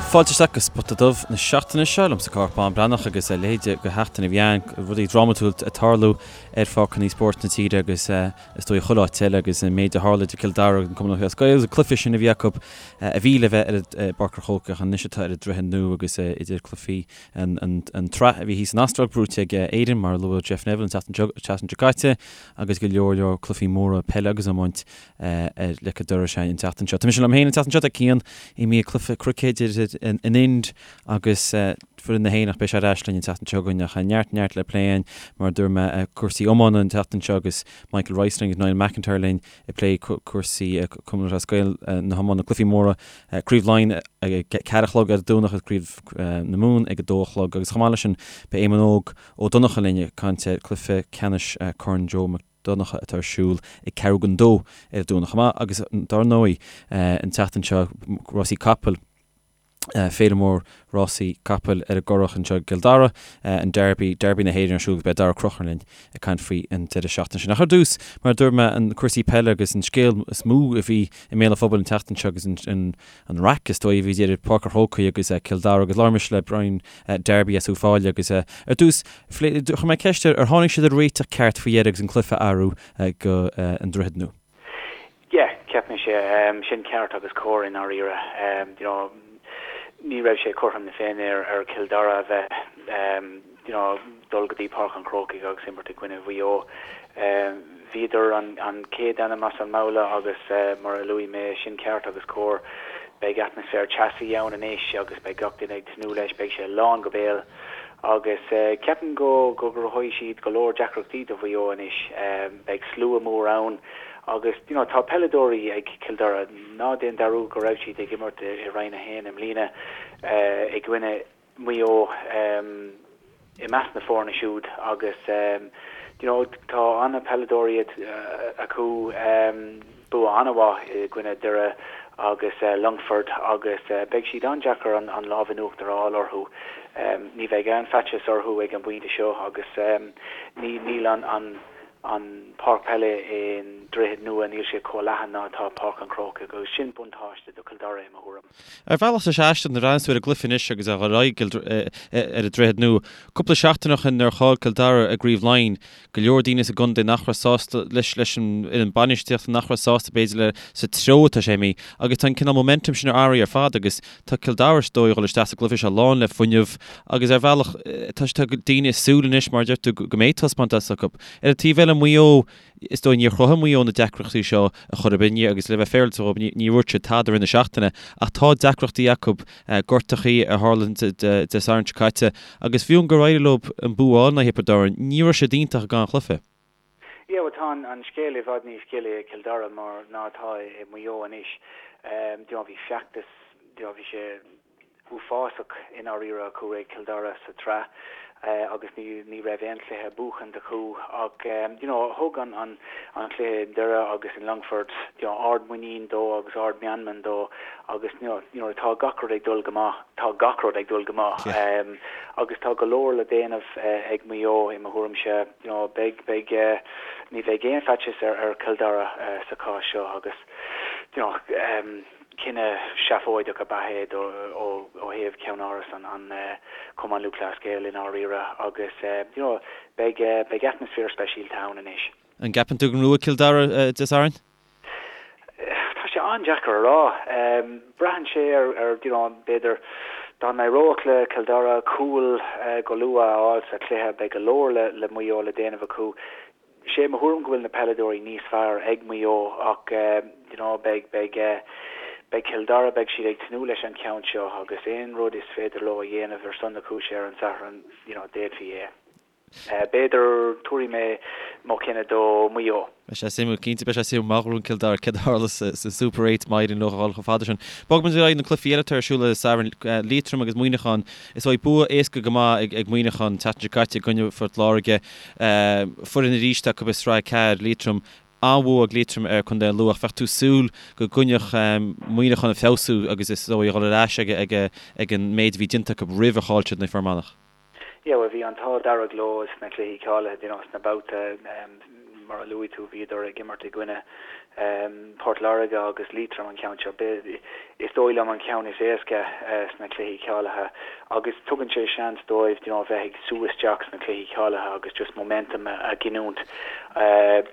Fáilte isteach go Spota Dubh na seachtaine seo liomsa Cárthach Bán Breathnach agus a leithéid de sheachtain a bhí ann, rudaí drámatúil ag tarlú ar pháirceanna spóirt na tíre agus is dóigh chuile áit eile agus an méid a tharla idir Cill Dara agus an Cumann Lúthchleas Gael agus an cluiche sin a bhí acu a bhí le bheith ar i bPáirc an Chrócaigh ach anois atá ar an Droichead Nua agus idir cluichí an tsraith a bhí thíos san Astráil buaite ag Éirinn mar a luaigh Jeff Neville an tseachtain seo caite agus go leor leor cluichí móra peile agus iomáint ar leic an dorais an tseachtain seo. Tá mise liom féin an tseachtain seo, tá Cian imithe ag cluiche cruicéid idir an Ind agus foireann na hÉireann ach beidh sé ar ais linn an tseachtain seo chugainn ach neart neart le plé againn mar a dúirt mé cúrsaí iomána an tseachtain seo agus Michael Rice linn agus Niall McIntyre linn ag plé cúrsaí Cumann Lúthchleas Gael na hiomána cluichí móra Craobh Laighean ag 4 a chlog ar an Domhnach agus Craobh na Mumhan ag 2 a chlog agus chomh maith leis sin beidh Éamonn Óg Ó Donnchadha linn ag caint ar chluiche ceannais Corn Joe Mac Donncha atá ar siúl ag ceathrú don dó ar an Domhnach chomh maith agus dár ndóigh an tseachtain seo rásaí capaill féile mór rásaí capaill ar an gCurrach anseo i gCill Dara, an Derby, Derby na hÉireann ar siúl agus beidh Daragh Ó Conchúir linn ag caint faoi an deireadh seachtaine sin. Ach ar dtús, mar a dúirt mé, an cúrsaí peile agus an scéal is mó a bhí i mbéal an phobail an tseachtain seo agus an an raic is dóigh a bhí idir Páirc an Chrócaigh agus Cill Dara agus labhair mise le Brian Darby as Uíbh Fhailí agus ar dtús chuir mé ceist air ar tháinig siad ar réiteach ceart faoi dheireadh agus an cluiche a athrú go an Droichead Nua. Yeah, cheap mise sin ceart agus cóir i ndáiríre. You know, ní raibh sé cothrom na Féinne ar Chill Dara a bheith you know, dul go dtí Páirc an Chrócaigh agus imirt i gcoinne Mhaigh Eo. Bhíodar an chéad ainm as an mbabhla agus mar a luaigh mé, sin ceart agus cóir. Beidh atmaisféar teasaí ann anois agus beidh gach duine ag tnúth leis, beidh sé lán go béal agus ceapaim go gcruthóidh siad go leor deacrachtaí do Mhaigh Eo anois. Beidh slua mór ann agus you know tá peileadóirí ag Cill Dara, ná déan dearúd go raibh siad ag imirt i Roinn 1 i mbliana i gcoinne Maigh Eo i measc na foirne siúd agus you know tá an-pheileadóirí acu, bua an-mhaith i gcoinne Doire agus Longfort agus beidh siad an-deacair an lámh in uachtar a fháil orthu. Ní bheidh aon faitíos orthu ag an bpointe seo agus níl an an páirc peile i nDroichead Nua, níl sé chomh leathan ná atá Páirc an Chrócaigh agus sin buntáiste do Chill Dara i mo thuairim. Ar bhealach tá sé aisteach nuair a bhreathnaíonn tú ar an gcluiche anois agus a dhul ar aghaidh ar an Droichead Nua. Cúpla seachtain ó shin nuair a chaill Cill Dara i gCraobh Laighean, go leor daoine sa gcontae nach raibh sásta leis leis an fhoireann bainistíochta, nach raibh sásta b'fhéidir le sa treo atá sé imithe agus tá an cineál momentum sin athraithe ar fad agus tá Cill Dara is dóigh a dhul isteach sa gcluiche seo lán le fuinneamh agus ar bhealach tá tá daoine ag súil anois mar a deir tú go mbeidh taispeántas acu. Ar an taobh eile Maigh Eo Is dóigh níor chruthaigh Maigh Eo na deacrachtaí seo ar chor ar bith agus le bheith féaráilte dhóibh ní dúirt siad tada i rith na seachtaine ach tá deacrachtaí acu, gortachaí a tharla Dé Sathairn seo caite agus fiú gur éirigh leo an bua a fháil in aghaidh Thiobraid Árann, ní raibh siad iontach ag an chluiche. Yeah, bhuel tá an scéal i bhfad níos gile i Cill Dara mar ná atá i Maigh Eo anois. You know, bhí feachtas, you know, bhí sé uafásach i ndáiríre acu ag Cill Dara sa tsraith agus ní ní raibh aon chluiche buachanta acu ach you know thug an an an cluiche i nDoire agus in Longfort you know ard muinín dó agus ard meanman dó agus you know you know tá gach rud ag dul go maith tá gach rud ag dul go maith agus tá go leor le déanamh ag Maigh Eo i mo thuairimse you know beidh beidh ní bheidh aon faitíos ar ar Chill Dara sa chás seo agus you know Cinneadh seafóideach ab ea é ó thaobh cheannáras an Chumann Lúthchleas Gael i ndáiríre agus you know beidh beidh atmaisféar speisialta ann anois. An gceapann tú go ngnóthóidh Cill Dara Dé Sathairn? Tá sé an-deacair a rá. Braitheann sé ar ar you know b'fhéidir dá n-éireodh le Cill Dara cúl go luath a fháil sa chluiche beidh go leor le le Maigh Eo le déanamh acu. Sé mo thuairim go bhfuil na peileadóirí níos fearr ag Maigh Eo ach you know beidh beidh beidh Cill Dara beidh siad ag tnúth leis an cheann seo agus aon rud is féidir leo a dhéanamh ar son na cúise ar an Satharn you know d'fhéadfaí é. B'fhéidir tabharfaidh mé mo chinneadh do Mhaigh Eo. Beidh sé suimiúil, cinnte beidh sé suimiúil má ghnóthaíonn Cill Dara céard a tharla sa Super 8 má éiríonn leo a dhul chomh fada sin. Bogfaidh muid ar aghaidh na cluichí eile atá ar siúl ar an Satharn, Liatroim agus Muineachán. Is dóigh bua éasca go maith ag Muineachán an tseachtain seo caite i gcoinne Phort Láirge. Foireann arís acu i Sraith 4, Liatroim. An-bhua ag Liatroim ar Chontae an Lú ach bheadh tú ag súil go gcoinneodh Muineachán ag feabhsú agus is dóigh a dhul ar ais ag an méid a bhí déanta acu roimh ar chaill siad in aghaidh Fear Manach. Yeah, bhuel bhí an t-ádh dearg leo sna cluichí cáilithe, you know, sna babhta. Mar a luaigh tú, bhíodar ag imirt i gcoinne Port Láirge agus Liatroim an ceann seo. Is dóigh liom an ceann is éasca sna cluichí cáilithe agus tugann sé seans dóibh you know bheith ag sú isteach sna cluichí cáilithe agus just momentum a ghiniúint.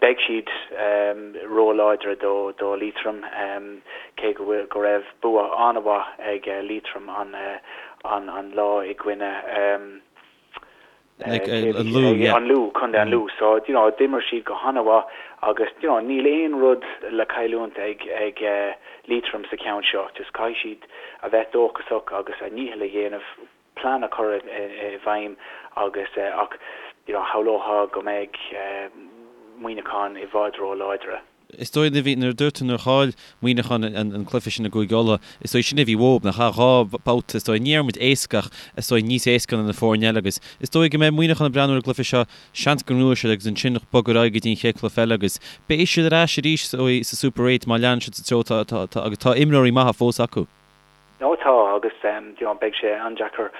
Beidh siad ró-láidre do do Liatroim cé go bhfuil go raibh bua an-mhaith ag Liatroim an an an lá i gcoinne An Lú, yeah. An Lú, Contae an Lú. So, you know, d'imir siad go han-mhaith agus, you know, níl aon rud le cailliúint ag, ag Liatroim sa cheann seo. Just caithfidh siad a bheith dóchasach agus a ndícheall a dhéanamh, plean a chur i bhfeidhm agus, ach, you know, shamhlófá go mbeidh Muineachán i bhfad ró-láidre. Is dóigh nuair a bhí, nuair a dúirt tú nuair a chaill Muineachán an cluiche sin i gCúige Uladh, is dóigh sin a bhí uathu, nach ea? 2 babhta, is dóigh, ní déarfaidh muid éasca ach is dóigh níos éasca ná na foirne eile agus is dóigh go mbeidh Muineachán ag breathnú ar an gcluiche seo, seans go ngnóthóidh siad agus ansin bogadh ar aghaidh go dtí an chéad chluiche eile agus beidh siad ar ais arís is dóigh sa Super Eight má leanann siad sa treo atá, atá, atá agus tá imreoirí maithe fós acu. Nó tá agus you know beidh sé an-deacair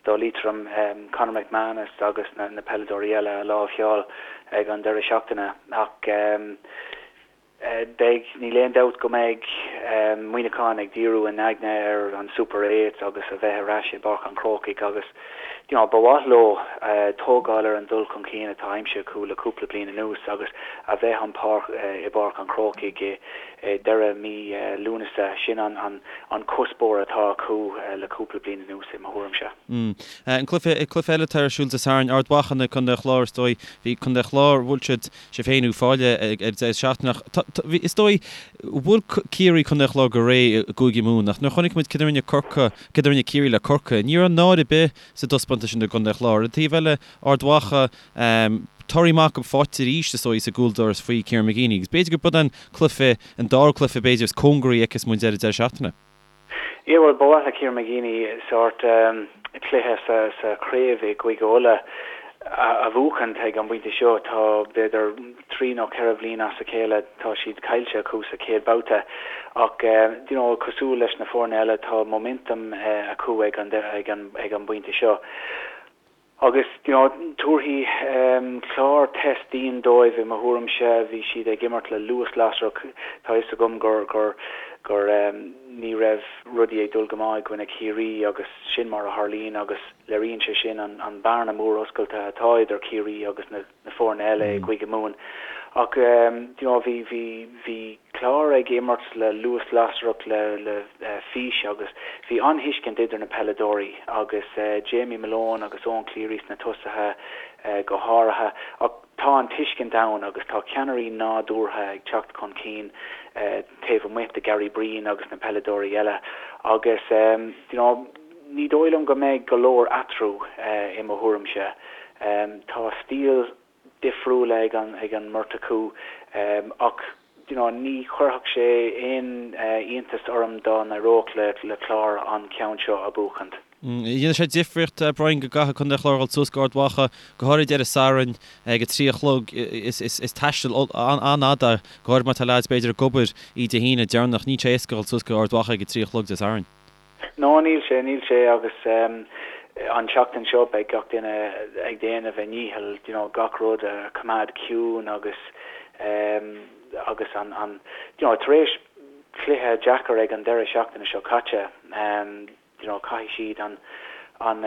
do Liatroim Conor McManus agus na na peileadóirí eile a láimhseáil ag an deireadh seachtaine ach beidh, níl aon dabht go mbeidh Muineachán ag díriú a n-aigne ar an Super Eight agus a bheith ar ais i bPáirc an Chrócaigh agus you know ba mhaith leo tógáil ar an dul chun cinn atá aimsithe acu le cúpla bliain anuas agus a bheith an páirc i bPáirc an Chrócaigh i deireadh mí Lúnasa. Sin an cuspóir atá acu le cúpla bliain anuas, i mo thuairimse. An cluiche cluiche eile atá ar siúl Dé Sathairn, Ard Mhacha in aghaidh Contae an Chláir, is dóigh. Bhí Contae an Chláir, bhuail siad sibh féin Uíbh Fhailí ag an deireadh seachtaine ach tá, tá, bhí, is dóigh, bhuail Ciarraí Contae an Chláir go réidh i gCúige Mumhan ach nuair a chonaic muid céard a rinne Corcaigh, céard a rinne Ciarraí le Corcaigh, ní raibh náire ar bith sa dtaispeántas sin i gContae an Chláir. Ar an taobh eile, Ard Mhacha, torthaí maith acu faighte arís, is dóigh, sa gcúldoras faoi Kieran McGeeney agus b'fhéidir gurb é an cluiche, an dara cluiche b'fhéidir is cóngaraí a fheicfeas muid ar an deireadh seachtaine. Yeah, bhuel, ba mhaith le Kieran McGeeney sórt cluiche sa sa chraobh i gCúige Uladh a bhuachaint ag an bpointe seo. Tá b'fhéidir 3 nó 4 bhliain as a chéile tá siad caillte acu sa chéad babhta ach you know cosúil leis na foirne eile tá momentum acu ag an ag an ag an bpointe seo. Agus, you know, tabharfaidh Clár test dian dóibh i mo thuairimse. Bhí siad ag imirt le luas lasrach. Tá fhios agam gur, gur, gur ní raibh rudaí ag dul go maith i gcoinne Chiarraí agus sin mar a tharlaíonn agus léiríonn sé sin an, an bearna mór oscailte atá idir Ciarraí agus na, na foirne eile i gCúige Mumhan. Ach, you know, bhí, bhí, bhí Clár ag imirt le luas lasrach, le, le fís agus bhí an-thuiscint idir na peileadóirí agus Jamie Malone agus Eoin Cleary sna tosaithe go háirithe. Ach tá an tuiscint ann agus tá ceannairí nádúrtha ag teacht chun cinn taobh amuigh de Gary Breen agus na peileadóirí eile agus, you know, ní dóigh liom go mbeidh go leor eatarthu i mo thuairimse. Tá stíl difriúil ag an ag an mbeirt acu ach you know ní chuirfeadh sé aon iontas orm dá n-éireodh le le Clár an ceann seo a bhuachaint. Dhéanfadh sé difríocht, Brian, go gcaithfeadh Contae an Chláir dhul suas go Ard Mhacha, go háirid ar an Satharn ag a 3 a chlog. Is taisteal an-fhada, go háirid má tá leaids b'fhéidir ag obair oíche Dé hAoine deireanach. Níl sé éasca dhul suas go Ard Mhacha ag a 3 a chlog Dé Sathairn. No, níl sé, níl sé agus an tseachtain seo beidh gach duine ag déanamh a ndícheall, you know, gach rud a choimeád ciúin agus agus an, an, you know, tar éis cluiche deacair ag an deireadh seachtaine seo caite, you know, caithfidh siad an, an,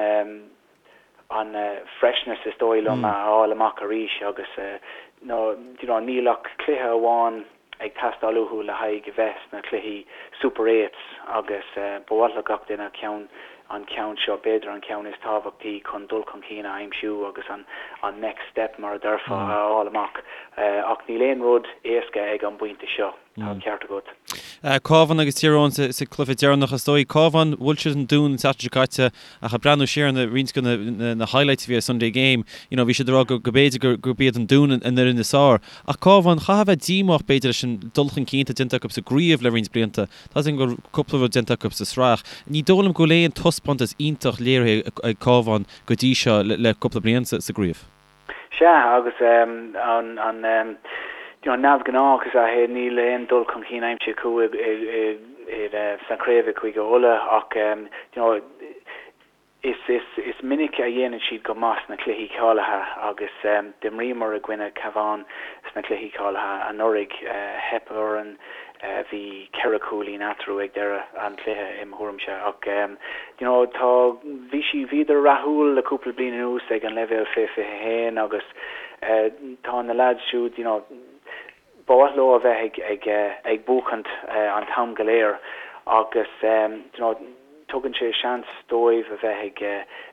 an freshness is dóigh liom a fháil amach arís agus no you know níl ach cluiche amháin ag teastáil uathu le haghaidh a bheith sna cluichí Super Eights agus ba mhaith le gach duine ceann an ceann seo b'fhéidir an ceann is tábhachtaí chun dul chun cinn a aimsiú agus an an next step mar a déarfá a fháil amach ach níl aon rud éasca ag an bpointe seo. Tá an ceart agat. Cabhán agus Tír Eoghain sa cluiche deireanach is dóigh. Cabhán, bhuail siad an Dún an tseachtain seo caite ach ag breathnú siar ar roinnt de na highlights a bhí ar Sunday Game, you know, bhí siad ag rá go b'fhéidir gurb iad an Dún an fhoireann is fearr. Ach Cabhán, chaithfeá a bheith díomách b'fhéidir leis an dul chun cinn atá déanta acu sa gcraobh le roinnt blianta. Tá a fhios agam go bhfuil cúpla rud déanta acu sa sraith. Ní dóigh liom go bhfuil aon taispeántas iontach léirithe ag Cabhán go dtí seo le cúpla bliain sa gcraobh. Sea, agus an you know neamhghnách is ea é, níl aon dul chun cinn aimsithe acu i i sna craobh i Cúige Uladh ach you know. Is is minic a dhéanann siad go maith sna cluichí cáilithe agus d'imríomar i gcoinne Cabhán sna cluichí cáilithe anuraidh. Theip orainn, bhí 4 chúilín eatarthu ag deireadh an chluiche i mo thuairimse ach you know tá bhí sí bhíodar rathúil le cúpla bliain anuas ag an leibhéal fé 21 agus tá na lads siúd you know Ba mhaith leo a bheith ag ag buachaint an t-am go léir agus you know tugann sé seans dóibh a bheith ag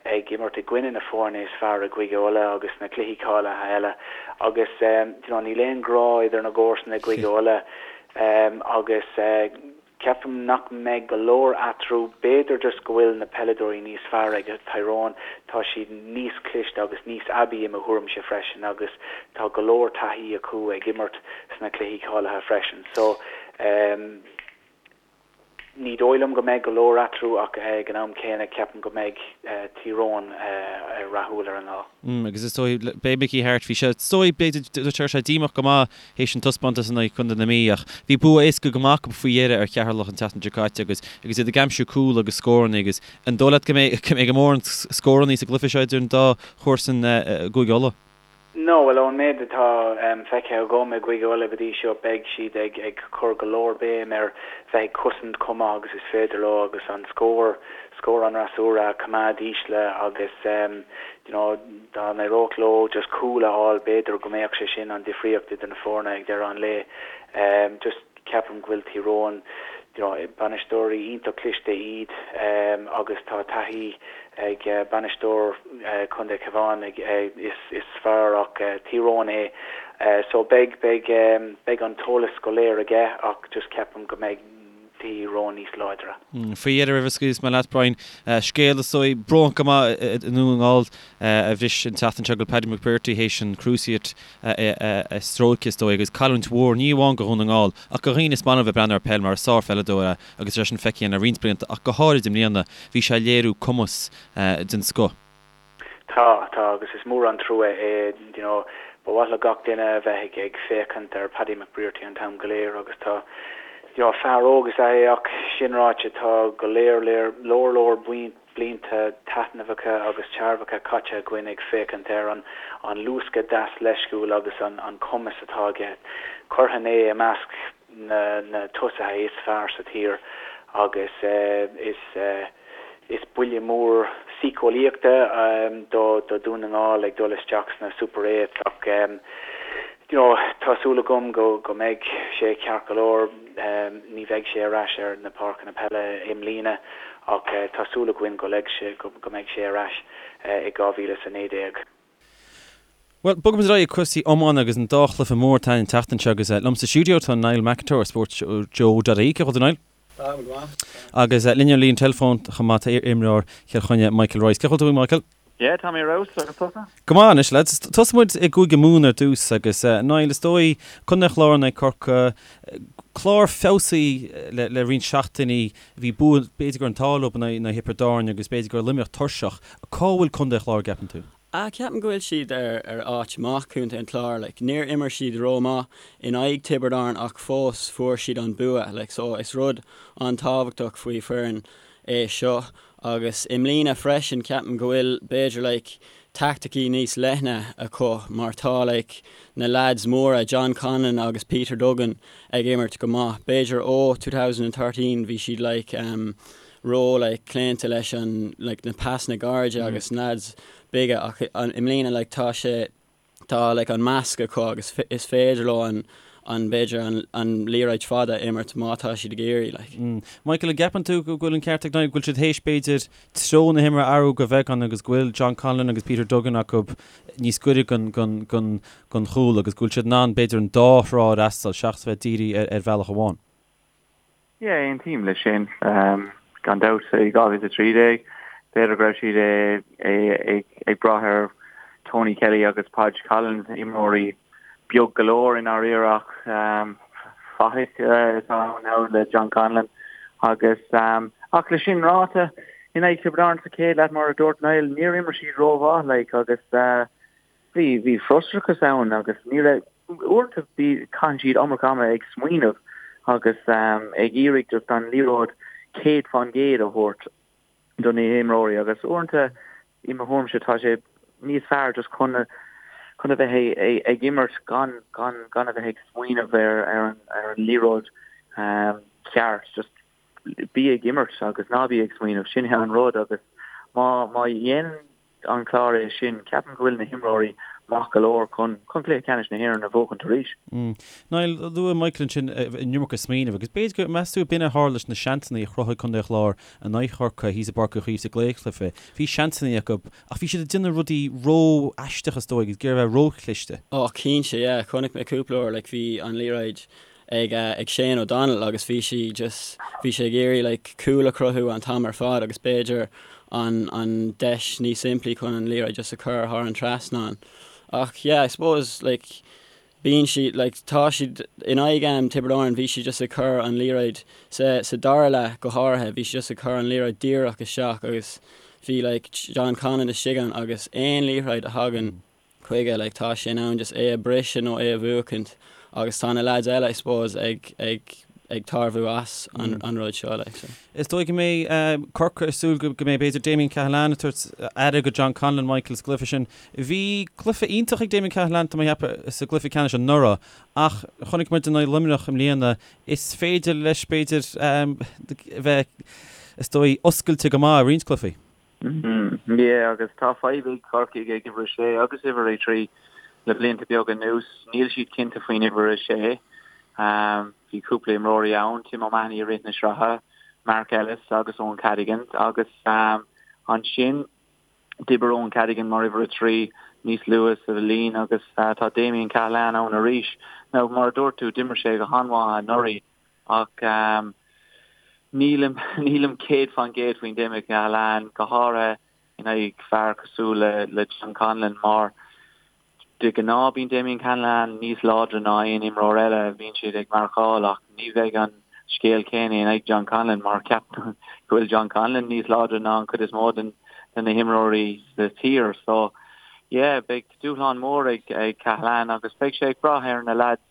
ag imirt i gcoinne na foirne is fearr i gCúige Uladh agus sna cluichí cáilithe eile agus you know níl aon ghrá idir na gcomharsana i gCúige Uladh agus Ceapaim nach mbeidh go leor eatarthu, b'fhéidir just go bhfuil na peileadóirí níos fearr ag Tyrone, tá siad níos cliste agus níos aibí i mo thuairimse freisin agus tá go leor taithí acu ag imirt sna cluichí cáilithe freisin. So, ní dóigh liom go mbeidh go leor eatarthu ach ag an am céanna ceapaim go mbeidh Tyrone rathúil ar an lá. Agus is dóigh, b'é Mickey Harte, bhí sé, is dóigh, b'fhéidir, dúirt sé díomách go maith théis an taispeántas in aghaidh Chontae na Mí ach bhí bua éasca go maith acu faoi dheireadh ar Cheatharlach an tseachtain seo caite agus agus iad ag aimsiú cúl agus scóranna agus an dóigh leat go mbeidh go mbeidh mórán scóranna sa gcluiche seo idir an dá chomharsan i gCúige Uladh? No, bhuel ón méid atá feicthe agam i gCúige Uladh go dtí seo beidh siad ag ag cur go leor béim ar bheith ag cosaint chomh maith agus is féidir leo agus an scór scór an fhreasúra a choimeád ísle agus you know dá n-éireodh leo just cúl a fháil b'fhéidir go mbeadh sé sin an difríocht idir na foirne ag deireadh an lae. Just ceapaim go bhfuil Tír Eoghain you know bainisteoirí iontach cliste iad agus tá taithí ag bainisteoir Chontae Cabhán is is fear as Tír Eoghain é so beidh beidh beidh an t-eolas go léir aige ach just ceapaim go mbeidh Tír Eoghain níos láidre. Faoi dheireadh roimh a scaoilfeas mé leat Brian, scéal is dóigh brónach go maith i nDún na nGall a bhris an tseachtain seo go bhfuil Paddy McBrearty théis an cruciate a stróiceadh is dóigh agus cailliúint mhór ní amháin do Dhún na nGall ach do dhaoine is maith leo bheith ag breathnú ar peil mar is sárpheileadóir é agus é sin feicthe le roinnt blianta ach go háirid i mbliana bhí sé ag léiriú cumas den scoth. Tá, tá agus is mór an trua é, you know, ba mhaith le gach duine a bheith ag féachaint ar Paddy McBrearty an t-am go léir agus tá, you know, fear óg is ea é ach sin ráite tá go léir léir leor leor blianta taitneamhacha agus tairbheacha caite againn ag féachaint ar an an luascadh deas leisciúil agus an an cumas atá aige. Chuirfinn é i measc na na tosaithe is fearr sa tír agus is is buille mór síceolaíochta do do Dhún na nGall ag dul isteach sna Super Eights ach you know tá súil agam go go mbeidh sé ceart go leor. Ní bheidh sé ar ais ar na páirceanna peile i mbliana ach tá súil againn go go mbeidh sé ar ais i 2019. Bhuel, bogfaimid ar aghaidh ag cúrsaí iomána agus an dá chluiche mór atá an tseachtain seo agus liom sa stiúideo tá Niall McIntyre ó Sports Joe dot ie. Cén chaoi a bhfuil tú Niall? Tá, go maith. Agus linn ar an líne teileafóin chomh maith tá iar-imreoir Chill Chainnigh Michael Rice. Cén chaoi a bhfuil tú Michael? Yeah, tá mé ar fheabhas, agus tusa? Go maith anois lads. Tosóidh muid i gCúige Mumhan ar dtús agus Niall is dóigh Contae an Chláir in aghaidh Corcaigh, clár feabhsaithe le le roinnt seachtainí, bhí bua b'fhéidir go raibh an t-ádh leo in aghaidh Thiobraid Árann agus b'fhéidir go raibh Luimneach tuirseach. Cá bhfuil Contae an Chláir an gceapann tú? Ah, ceapaim go bhfuil siad ar ar áit maith, Contae an Chláir, like, níor imir siad ró-maith in aghaidh Tiobraid Árann ach fós fuair siad an bua, like, so is rud an-tábhachtach faoi foireann é seo agus i mbliana freisin ceapaim go bhfuil b'fhéidir like taicticí níos leithne acu mar tá like na lads móra John Conlon agus Peter Duggan ag imirt go maith, b'fhéidir ó 2013 bhí siad like um, ró like claonta leis an like na pasanna gairide agus na lads beaga ach i mbliana like tá sé tá like an measc acu agus is féidir leo an an b'fhéidir an an liathróid fada a imirt má tá siad ag iarraidh like. Michael, an gceapann tú go bhfuil an ceart ag Niall, go bhfuil siad théis b'fhéidir treo na himeartha a athrú go beagán agus go bhfuil John Conlon agus Peter Duggan acu níos gaire gon gon gon gon chúl agus go bhfuil siad in ann b'fhéidir an dá thrá a fhreastal seachas bheith dírithe ar ar bhealach amháin? Yeah, aontaím leis sin. Gan dabht, i 2013, b'fhéidir go raibh siad ag brath ar Tony Kelly agus Podge Collins, imreoirí beag go leor i ndáiríre ach fathaigh atá ann now le John Conlon agus ach le sin ráite, in aghaidh Tiobraid Árann sa chéad leath mar a dúirt Niall, níor imir siad rómhaith like agus Bhí, bhí frustrachas ann agus ní raibh, uaireanta bhí, caitheann siad iomarca ama ag smaoineamh agus ag iarraidh just an liathróid 100% a thabhairt. do na himreoirí agus uaireanta i mo thuairimse tá sé níos fearr just chun chun a bheith ag imirt gan gan gan a bheith ag smaoineamh ar ar an ar an liathróid ceart just bí ag imirt agus ná bí ag smaoineamh sin é an rud agus má má dhéanann an Clár é sin, ceapaim go bhfuil na himreoirí maith go leor chun chun cluiche ceannais na hÉireann a bhuachaint arís. Niall, luaigh Michael ansin an iomarca smaoineamh agus b'fhéidir go, meas tú, b'in a tharla leis na seansanna a chruthaigh Contae an Chláir in aghaidh Chorcaí thíos i bPáirc Uí Chaoimh sa gcraobhchluiche. Bhí seansanna acu ach bhí siad ag déanamh rudaí ró-aisteach is dóigh, ag iarraidh a bheith ró-chliste. Ó cinnte, yeah. Chonaic mé cúpla uair, like, bhí an liathróid ag ag Shane O'Donnell agus bhí sí just bhí sé ag iarraidh like cúl a chruthú an t-am ar fad agus b'fhéidir an an deis níos simplí chun an liathróid just a chur thar an trasnán. Ach yeah I suppose like bíonn siad like tá siad in aghaidh um, Tiobraid Árann bhí siad just ag cur an liathróid sa sa dara leath go háirithe bhí siad just ag cur an liathróid díreach isteach agus bhí like John Conlon istigh ann agus aon liathróid a thagann chuige, like tá sé in ann just é a briseadh nó é a bhuachaint agus tá na lads eile I suppose ag ag ag tairbhiú as an an rud seo like so. Is dóigh go mbeidh Corcaigh ag súil go mbeidh b'fhéidir Damien Cahalane ag tabhairt aire go John Conlon, Michael sa gcluiche sin. Bhí cluiche iontach ag Damien Cahalane tá mé ag ceapadh sa gcluiche ceannais anuraidh ach chonaic muid in aghaidh Luimneach i mbliana is féidir leis b'fhéidir a bheith is dóigh oscailte go maith i roinnt cluichí. Yeah, agus tá fadhb ag Corcaigh ag uimhir a sé agus uimhir a 3 le blianta beaga anuas. Níl siad cinnte faoin uimhir a sé. Bhí cúpla imreoirí ann, Tim O'Mahony i rith na sraithe, Mark Ellis agus Eoin Cadogan agus ansin d'oibir Eoin Cadogan mar uimhir a 3 níos luaithe sa bhliain agus tá Damien Cahalane ann arís. Now, mar a dúirt tú, d'imir sé go han-mhaith anuraidh. Ach nílim, nílim 100% faoin Damien Cahalane, go háirithe in aghaidh fear cosúil le, le John Conlon mar de ghnáth bíonn Damien Cahalane níos láidre ná aon imreoir eile a bhíonn siad ag marcáil ach ní bheidh an scéal céanna in aghaidh John Conlon mar ceapaim go bhfuil John Conlon níos láidre ná an chuid is mó den, de na himreoirí sa tír. So yeah, beidh dúshlán mór ag, ag Cahalane agus beidh sé ag brath ar na lads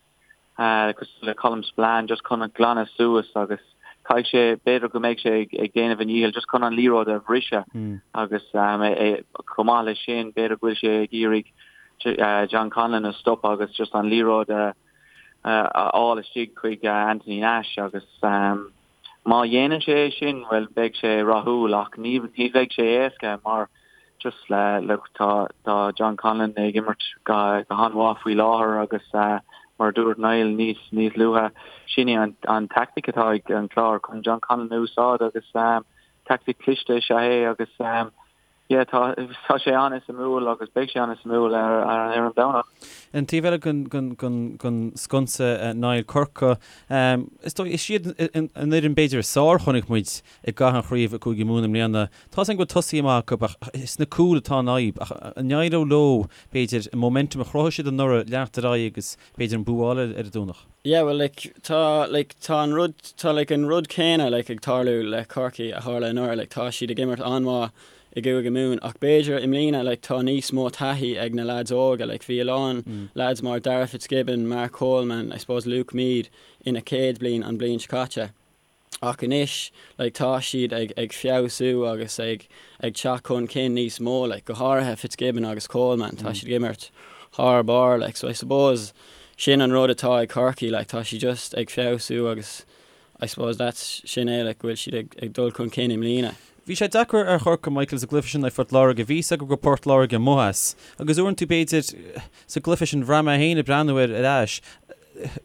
cosúil le Colm Spillane just chun glanadh suas agus caithfidh sé, b'fhéidir go mbeidh sé ag déanamh a ndícheall just chun an liathróid a bhriseadh agus chomh maith leis sin b'fhéidir go bhfuil sé ag iarraidh John Conlon a stopadh agus just an liathróid a fháil istigh chuig Anthony Nash agus Má dhéanann sé é sin, bhuel, beidh sé rathúil ach ní bheidh sé éasca mar just le, look, tá, tá John Conlon ag imirt go, go han-mhaith faoi láthair agus mar a dúirt Niall níos, níos luaithe, sin é an, an tactic atá ag an Clár chun John Conlon a úsáid agus tactic cliste is ea é agus Yeah, tá, tá sé an-suimiúil agus beidh sé an-suimiúil ar, ar, ar an Domhnach. An taobh eile den, den, den, den sconsa, Niall Corcaigh, is dóigh, is iad an fhoireann b'fhéidir is fearr a chonaic muid i gcaitheamh an chraobh i gCúige Mumhan i mbliana. Tá 's againn go bhfuil tosaithe maith acu ach is sna cúil atá an fhadhb. Ach an éireoidh leo, b'fhéidir, an momentum a chruthaigh siad anuraidh leanacht ar aghaidh agus b'fhéidir an bua a fháil ar an Domhnach? Yeah, well like tá like tá an rud tá like an rud céanna like ag tarlú le Corcaigh a tharla anuraidh like tá siad ag imirt an-mhaith i gCúige Mumhan ach b'fhéidir i mbliana like tá níos mó taithí ag na lads óga like bhí a lán lads mar Darragh Fitzgibbon, Mark Coleman, I suppose Luke Meade ina chéad bliain an bliain seo caite. Ach anois, like, tá siad ag, ag feabhsú agus ag, ag teacht chun cinn níos mó, like, go háirithe Fitzgibbon agus Coleman, tá siad ag imirt thar barr, like, so I suppose sin an rud atá ag Corcaigh, like, tá siad just ag feabhsú agus I suppose that's, sin é, like, go bhfuil siad ag, ag dul chun cinn i mbliana. Bhí sé deacair ar Chorcaigh, Michael, sa gcluiche sin in aghaidh Phort Láirge. Bhí 'fhios acu go raibh Port Láirge amuigh as. Agus uaireanta, b'fhéidir, sa gcluiche sin, bhraith mé féin ag breathnú air ar ais,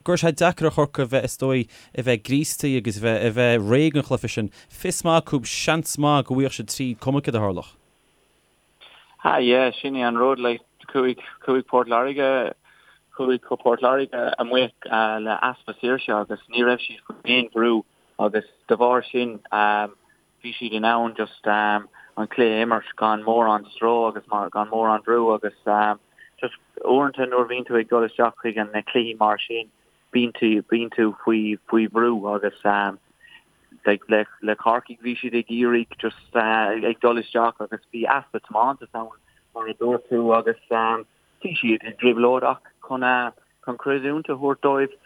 go raibh sé deacair ar Chorcaigh a bheith, is dóigh, a bheith gríostaí agus a bheith, a bheith réidh don chluiche sin. Fios maith acu, seans maith go bhfaigheadh siad tríd, cuma céard a tharlódh. Ah yeah, sin é an rud, like, chuaigh, chuaigh Port Láirge, chuaigh Port Láirge amuigh le easpa saoirse agus ní raibh siad faoi aon bhrú agus de bharr sin bhí siad in ann just an cluiche a imirt gan mórán stró agus gan mórán brú agus just uaireanta nuair a bhíonn tú ag dul isteach chuig an na cluichí mar sin bíonn tú bíonn tú faoi faoi bhrú agus like le le Corcaigh bhí siad ag iarraidh just ag dul isteach agus bhí easpa tiomantas ann mar a dúirt tú agus bhí siad i dtrioblóid ach chun chun creidiúint a thabhairt dóibh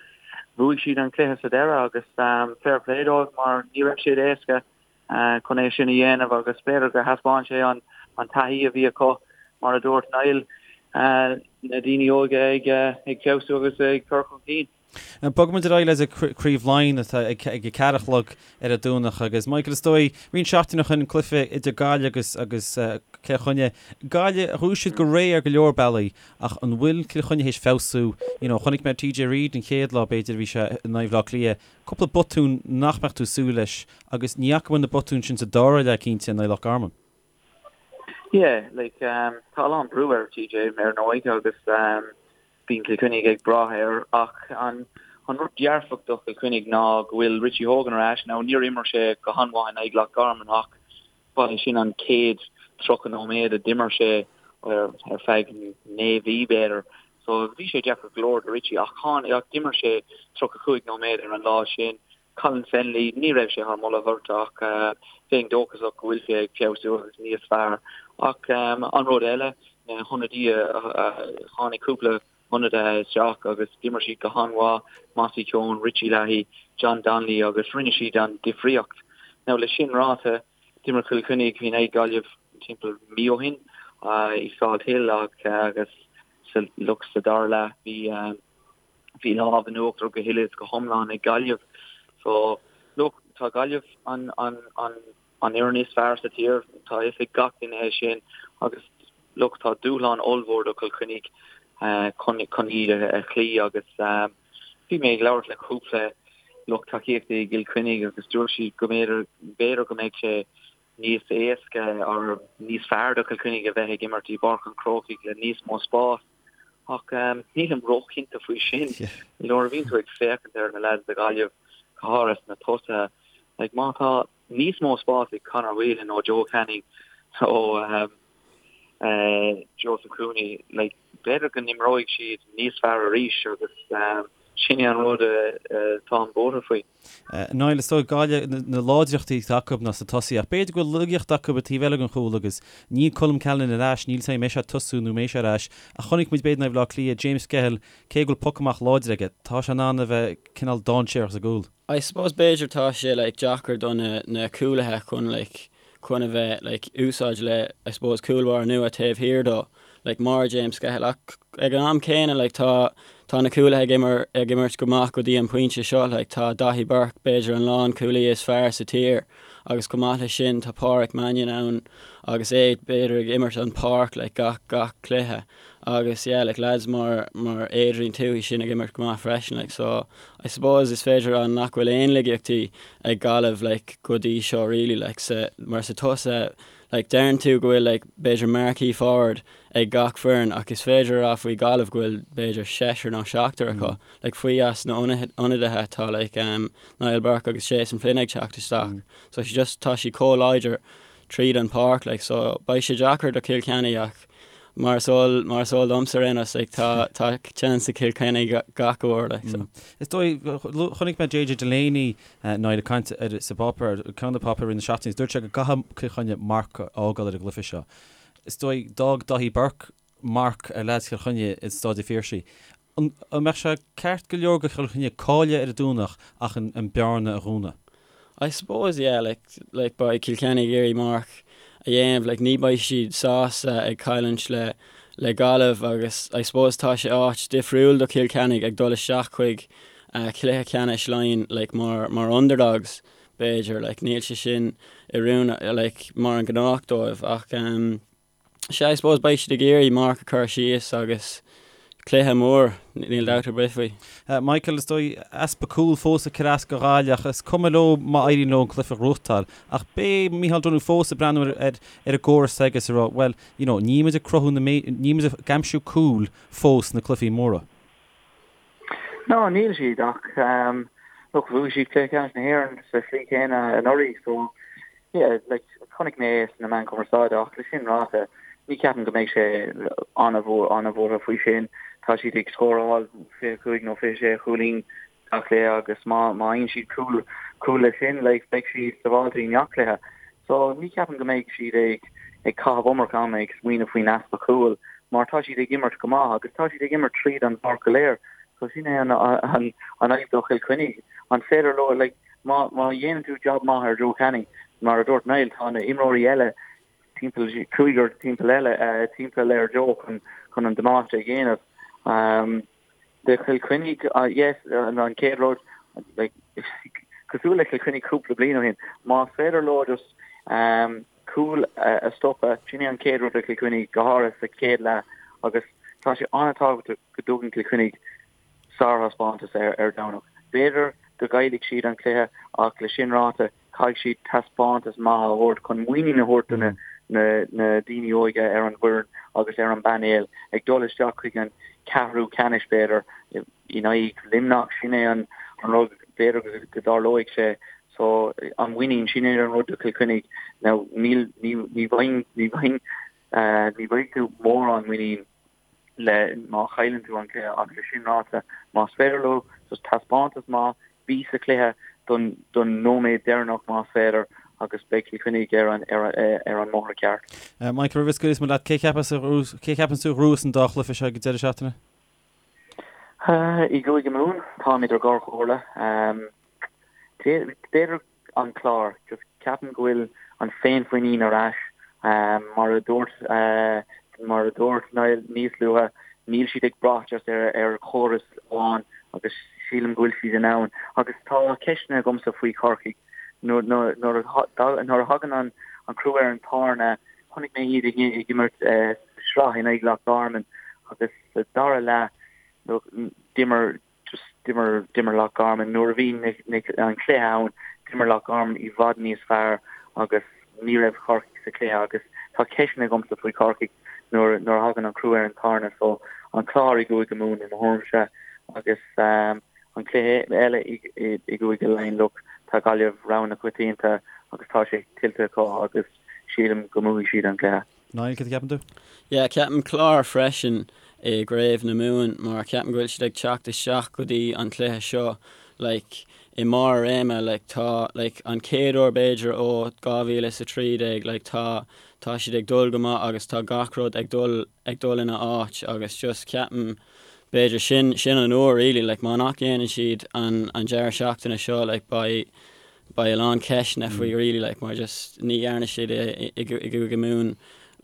bhuaigh siad an cluiche sa deireadh agus fair play dóibh mar ní raibh siad éasca. chun é sin a dhéanamh agus b'fhéidir gur thaispeáin sé an taithí a bhí acu, mar a dúirt Niall, na daoine óga ag feabhsú agus ag cur chun cinn. Bogfaimid ar aghaidh le Craobh Laighean atá ag a ceathair a chlog ar an Domhnach agus Michael is dóigh roinnt seachtaine ó shin cluiche idir Gaillimh agus agus Cill Chainnigh. Gaillimh bhuaigh siad go réidh ar go leor bealaí ach an bhfuil Cill Chainnigh théis feabhsú? You know chonaic mé TJ Reid an chéad lá b'fhéidir a bhí sé in aghaidh Bhaile Átha Cliath, cúpla botún nach mbeadh tú ag súil leis agus ní fhaca muid na botúin sin sa dara leath cinnte in aghaidh Loch Garman. Yeah, like tá a lán brú ar TJ ar ndóigh agus Bíonn Cill Chainnigh ag brath air ach an rud dearfach do Chill Chainnigh ná go bhfuil Richie Hogan ar ais. Now níor imir sé go han-mhaith in aghaidh Loch Garman ach ba é sin an chéad 30 nóiméad a d'imir sé ar feadh 9 mhí b'fhéidir. So bhí sé deacair go leor do Richie ach ach d'imir sé 35 nóiméad ar an lá sin. Colin Fennelly, ní raibh sé thar moladh beirte ach bheinn dóchasach go bhfuil sé ag feabhsú agus níos fearr. Ach an rud eile, na hionadaithe, tháinig cúpla ionadaithe isteach agus d'imir siad go han-mhaith, Mossy Keoghan, Richie Leahy, John Donnelly agus rinne siad an difríocht. Now le sin ráite, d'imir Cill Chainnigh in aghaidh Gaillimh timpeall mí ó shin i Salthill agus look sa dara leath bhí Bhí lámh in uachtar go huile is go hiomlán ag Gaillimh. So, look, tá Gaillimh an an an an fhoireann is fearr sa tír, tá a fhios ag gach duine é sin agus look, tá dúshlán ollmhór do Chill Chainnigh chun chun iad a chloí agus bhí mé ag labhairt le cúpla lucht tacaíochta i gCill Chainnigh agus dúirt siad go mb'fhéidir b'fhéidir go mbeidh sé níos éasca or níos fearr do Chill Chainnigh a bheith ag imirt i bPáirc an Chrócaigh le níos mó spás. Ach nílim róchinnte faoi sin. Nuair a bhíonn tú ag féachaint ar na lads do Ghaillimh, go háirithe sna tosaithe, like má tá níos mó spás ag Conor Whelan nó Joe Canning nó Joseph Cooney, like b'fhéidir go n-imreoidh siad níos fearr arís agus sin é an rud atáim buartha faoi. Niall, is dóigh Gaillimh, na láidreachtaí atá acu ná sna tosaithe ach b'fhéidir go bhfuil laigeacht acu an taobh eile den chúl agus níl Colm Callanan ar ais, níl 's agam an mbeidh sé ag tosú nó an mbeidh sé ar ais ach chonaic muid b'fhéidir in aghaidh Bhaile Átha Cliath, James Skehill, cé go bhfuil poc amach láidir aige, tá sé in ann a bheith cineál dainséarach sa gcúl. I suppose b'fhéidir tá sé like deacair do na na cúlaithe chun like chun a bheith like úsáid le I suppose cúl báire nua taobh thiar dó like mar James Skehill ach ag an am céanna like tá tá na cúlaithe ag imir ag imirt go maith go dtí an pointe seo like tá Daithí Burke b'fhéidir an lánchúlaí is fearr sa tír agus chomh maith leis sin tá Páraic Mannion ann agus é b'fhéidir ag imirt an páirc like gach gach cluiche agus yeah like lads mar mar Adrian Tuohy sin ag imirt go maith freisin like so I suppose is féidir a rá nach bhfuil aon laigeachtaí ag Gaillimh like go dtí seo really like sa mar sa tosaithe like deireann tú go bhfuil like b'fhéidir marquee forward ag gach foireann ach is féidir a rá faoi Ghaillimh go bhfuil b'fhéidir seisear nó seachtar acu like faoi as na ionadaithe tá like um, Niall Burke agus Jason Flynn ag teacht isteach so she just tá siad chomh láidir tríd an páirc like so beidh sé deacair do Chill Chainnigh ach mar is eol mar is eol domsa ar aon nós like tá tá chance ag Cill Chainnigh gach uair like so. Is dóigh chonaic mé JJ Delaney Niall ag caint ar sa bpáipéar ceann de na páipéir i rith na seachtaine is dúirt sé go gcaithfidh Cill Chainnigh marc a fhágáil ar an gcluiche seo. Is dóigh d'fhág Daithí Burke marc ar leaids Chill Chainnigh i Staid an Phiarsaigh. An mbeadh sé ceart go leor do Chill Chainnigh cailleadh ar an Domhnach ach an bearna a dhúnadh? I suppose yeah like like beidh Cill Chainnigh ag iarraidh marc a dhéanamh like ní beidh siad sásta ag cailliúint le le Gaillimh agus I suppose tá sé áit difriúil do Chill Chainnigh ag dul isteach chuig uh, cluiche ceannais Laighean like mar mar underdogs b'fhéidir like níl sé sin oiriúnach like mar an gnách dóibh ach um, Sea, I suppose beidh siad ag iarraidh marc a chur síos agus cluiche mór, níl dabht ar bith faoi. Michael, is dóigh, easpa cúl fós ag cur as do Ghaillimh ach is cuma leo má éiríonn leo an cluiche a ghnóthachtáil. Ach beidh Micheál Donoghue fós ag breathnú ar ar an gcóras s'aige is ag rá, bhuel, you know, níl muid ag cruthú na, níl muid ag aimsiú cúil fós sna cluichí móra. No, níl siad ach look, bhuaigh siad Cluiche Ceannais na hÉireann sa tslí chéanna anuraidh so yeah, like, chonaic mé é sna meáin chumarsáide ach le sin ráite, ní cheapaim go mbeidh sé an-bhuartha faoi sin. Tá siad ag scóráil 25 nó 26 chúilín gach cluiche agus má má fhaigheann siad cúl cúl leis sin like, beidh siad sábháilte i ngach cluiche. So ní cheapaim go mbeidh siad ag ag caitheamh iomarca ama ag smaoineamh faoin easpa cúil mar tá siad ag imirt go maith agus tá siad ag imirt tríd an bpáirc go léir. So sin é an an an fhadhb do Chill Chainnigh. An féidir leo like má má dhéanann tú job maith ar Joe Canning, Mar a dúirt Niall, tá na imreoirí eile timpeall, cúigear timpeall eile, timpeall ar Joe chun chun an damáiste a dhéanamh. Do Chill Chainnigh, yes, an chéad rud, like, cosúil le Cill Chainnigh cúpla bliain ó shin, más féidir leo just cúil a stopadh, sin é an chéad rud do Chill Chainnigh, go háirithe sa chéad leath, agus tá sé an-tábhachtach go dtugann Cill Chainnigh sárthaispeántas ar Domhnach. B'fhéidir go gcaillfidh siad an cluiche ach le sin ráite, caithfidh siad taispeántas maith a thabhairt chun muinín a thabhairt do na daoine óige ar an bhfoireann agus ar an bpainéal ag dul isteach chuig an ceathrú ceannais b'fhéidir in aghaidh Luimneach. Sin é an rud b'fhéidir go dtarlóidh sé. So an mhuinín, sin é an rud do Chill Chainnigh. Now níl, ní, ní bhfaigheann, ní bhfaigheann, ní bhfaighidh tú mórán muinín le má chailleann tú an cluiche ach le sin ráite, más féidir leo just taispeántas maith, bí sa chluiche don don nóiméad deireanach más féidir agus beidh Cill Chainnigh ar an ar ar an mbóthar ceart. Michael, roimh a scaoilfeas muid leat, cé cheapas a cé cheapann tú a ghnóthós an dá chluiche seo ag an deireadh seachtaine? I gCúige Mumhan, táim idir dhá chomhairle. B'fhéidir an Clár. Just ceapaim go bhfuil an féinmhuinín ar ais. Mar a dúirt mar a dúirt Niall níos luaithe, níl siad ag brath just ar ar chóras amháin agus sílim go bhfuil siad in ann. Agus tá ceisteanna agamsa faoi Chorcaigh. Nuair nuair a nuair a thagann an an crú ar an tairne, chonaic mé iad ag ag imirt sraith in aghaidh Loch Garman agus sa dara leath d'imir just d'imir d'imir Loch Garman nuair a bhí an cluiche ann d'imir Loch Garman i bhfad níos fearr agus ní raibh Corcaigh sa chluiche agus tá ceisteanna agamsa faoi Chorcaigh nuair nuair a thagann an crú ar an tairne so an Clár i gCúige Mumhan i mo thuairimse agus um, an cluiche eile i, i, i gCúige Laighean look tá Gaillimh rogha na coitianta agus tá sé tuillte acu agus sílim go mbuafaidh siad an cluiche. Niall, cad a cheapann tú? Yeah, ceapaim Clár freisin i gCraobh na Mumhan mar ceapaim go bhfuil siad ag teacht isteach go dtí an cluiche seo like i mbarr a réime like tá like an chéad uair b'fhéidir ó 2013 like tá tá siad ag dul go maith agus tá gach rud ag dul ag dul ina áit agus just ceapaim b'fhéidir sin sin an uair really like má nach dhéanann siad an an deireadh seachtaine seo like beidh beidh a lán ceisteanna faoi really like mar just ní dhearna siad é i gCúige Mumhan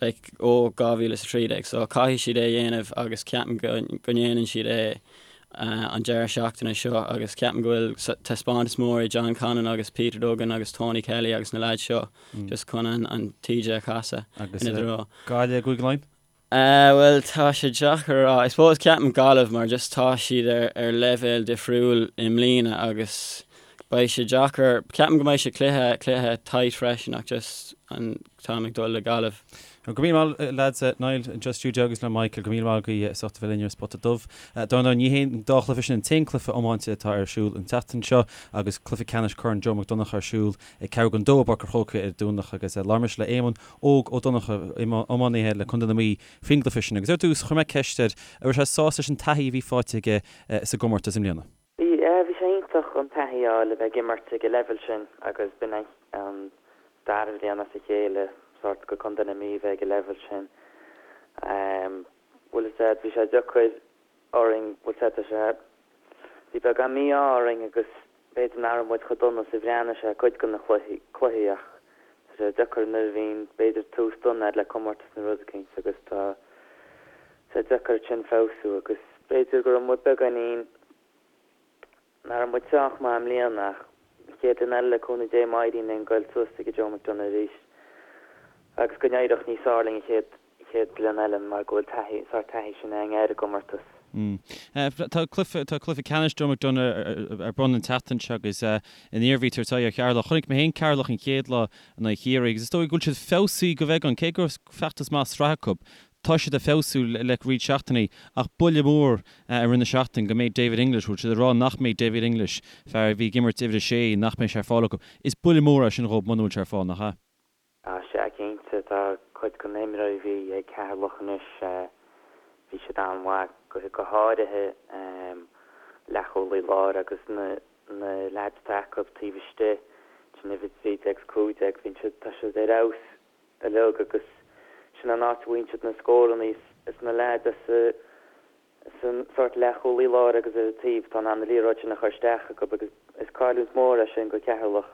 like ó 2013 so caithfidh siad é a dhéanamh agus ceapaim go go ndéanann siad é an deireadh seachtaine seo agus ceapaim go bhfuil taispeántas mór ag John Connon agus Peter Duggan agus Tony Kelly agus na lads seo just chun an an taoide a chasadh ina dtreo. Gaillimh i gCúige Laighean? Bhuel, tá sé deacair a rá. I suppose ceapaim Gaillimh mar just tá siad ar ar leibhéal difriúil i mbliana agus beidh sé deacair, ceapaim go mbeidh sé cluiche, cluiche tight freisin ach just an táim ag dul le Gaillimh. Go raibh míle maith lads, Niall anseo sa stiúideo agus le Michael, go raibh míle maith agaibh as ucht a bheith linn ar Spota Dubh. Dar ndóigh ní hé an dá chluiche sin an t-aon cluiche iomáinte atá ar siúl an tseachtain seo agus cluiche ceannais Corn Joe McDonagh ar siúl ag ceathrú don dó i bPáirc an Chrócaigh ar an Domhnach agus labhair mise le Éamonn Óg Ó Donnchadha, iománaithe le Contae na Mí faoin gcluiche sin agus ar dtús chuir mé ceist air an raibh sé sásta leis an taithí a bhí faighte aige sa gcomórtas i mbliana. Bhí, bhí sé iontach an taithí a fháil a bheith ag imirt ag an leibhéal sin agus b'in an dara bhliain as a chéile sórt go Contae na Mí bheith ag an leibhéal sin. Bhfuil a fhios a'd, bhí sé deacair orainn, bhfuil a fhios a'd, tá sé, bhí beagán mí-ádh orainn agus b'fhéidir nach raibh muid chomh dona is a bhreathnaigh sé cuid de na cluichí, cluichí ach tá sé deacair nuair a bhíonn b'fhéidir tús dona a'd le comórtas nó rud eicínt agus tá sé deacair ansin feabhsú agus b'fhéidir go raibh muid beagáinín Nach raibh muid sách maith i mbliana ach an chéad bhliain eile le cúnamh Dé má éiríonn linn goil suas ag an Joe McDonagh arís agus go n-éireodh níos fearr linn an chéad chéad bhliain eile mar go bhfuil taithí, sórt taithí sin againn ar an gcomórtas. Tá cluiche, tá cluiche ceannais Joe McDonagh ar bun an tseachtain seo agus an Iarmhí ag tabhairt aghaidh ar Cheatharlach. Chonaic mé féin Ceatharlach an chéad lá in aghaidh Chiarraí agus is dóigh go bhfuil siad feabhsaithe go bheagán, cé go raibh feachtas maith sraithe acu. Tá siad ag feabhsú le roinnt seachtainí ach buille mór i rith na seachtaine go mbeidh David English, bhfuil siad ag rá nach mbeidh David English, fear a bhí ag imirt uimhir a sé, nach mbeidh sé ar fáil acu. Is buille mór é sin dhóibh muna bhfuil sé ar fáil, nach ea? Á sea, cinnte. Tá cuid de na himreoirí a bhí ag Ceatharlach anois, bhí siad an-mhaith, go háirithe leathchúlaí láir agus na leaids atá acu taobh istigh, sin uimhir 13 agus 15, bhíonn siad, tá siad ar fheabhas. uilig agus sin an áit a bhfaigheann siad na scóranna is na leaids as an sórt leathchúlaí láir agus ar an taobh atá in ann an liathróid sin a chur isteach acu agus Is cailliúint mór é sin go Ceatharlach.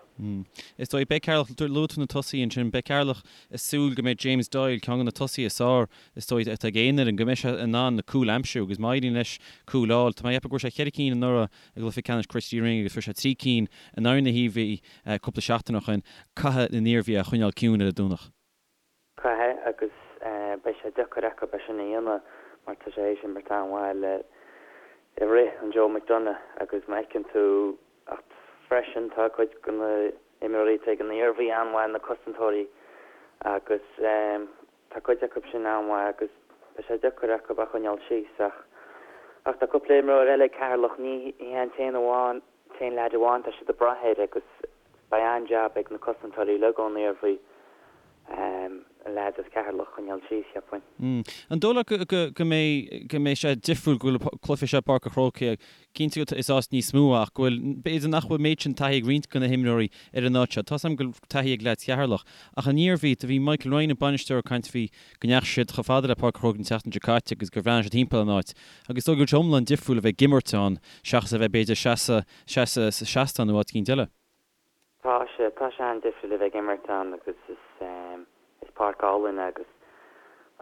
Is dóigh, beidh Ceatharlach, luaigh tú na tosaithe ansin, beidh Ceatharlach ag súil go mbeidh James Doyle, ceann de na tosaithe is fearr is dóigh atá ag aon fhoireann, go mbeidh sé in ann na cúil a aimsiú agus má éiríonn leis cúil a fháil, tá mé ag ceapadh go bhfuair sé cheithre cinn anuraidh i gcluiche ceannais Christy Ring agus fuair sé 3 cinn in aghaidh na hIarmhí cúpla seachtain ó shin, caithfidh an Iarmhí é a choinneáil ciúin ar an Domhnach. Caithfidh agus beidh sé deacair acu é sin a dhéanamh mar tá sé théis imirt an-mhaith le i rith an Joe McDonagh agus má fheiceann tú ach freisin tá cuid de na imreoirí atá ag an Iarmhí an-mhaith, na cosantóirí agus tá cuid acu sin an-mhaith agus beidh sé deacair acu a choinneáil síos ach ach tá cúpla imreoir eile ag Ceatharlach, ní hé an t-aon amháin, t-aon leaid amháin tá siad ag brath air agus beidh an-jab ag na cosantóirí uilig ón Iarmhí an leaid as Ceatharlach a choinneáil síos, cheapfainn. An dóigh leat go mbeidh go mbeidh sé difriúil go bhfuil cluiche seo i bPáirc an Chrócaigh Cinnte go is áit níos mó ach go bhfuil, b'fhéidir nach bhfuil méid sin taithí ag roinnt de na himreoirí ar an áit seo. Tá's agam go bhfuil taithí ag leaids Cheatharlach ach an Iarmhí, do bhí Michael Ryan an bainisteoir ag caint faoi go ndeachaigh siad chomh fada le Páirc an Chrócaigh an tseachtain seo caite agus gur bhreathnaigh siad timpeall an áit agus is dóigh go bhfuil sé iomlán difriúil a bheith ag imirt ann seachas a bheith b'fhéidir seasamh seasamh sa seastán nó áit eicínt eile. Tá sé, tá sé an-difriúil a bheith ag imirt ann agus is, is páirc álainn é agus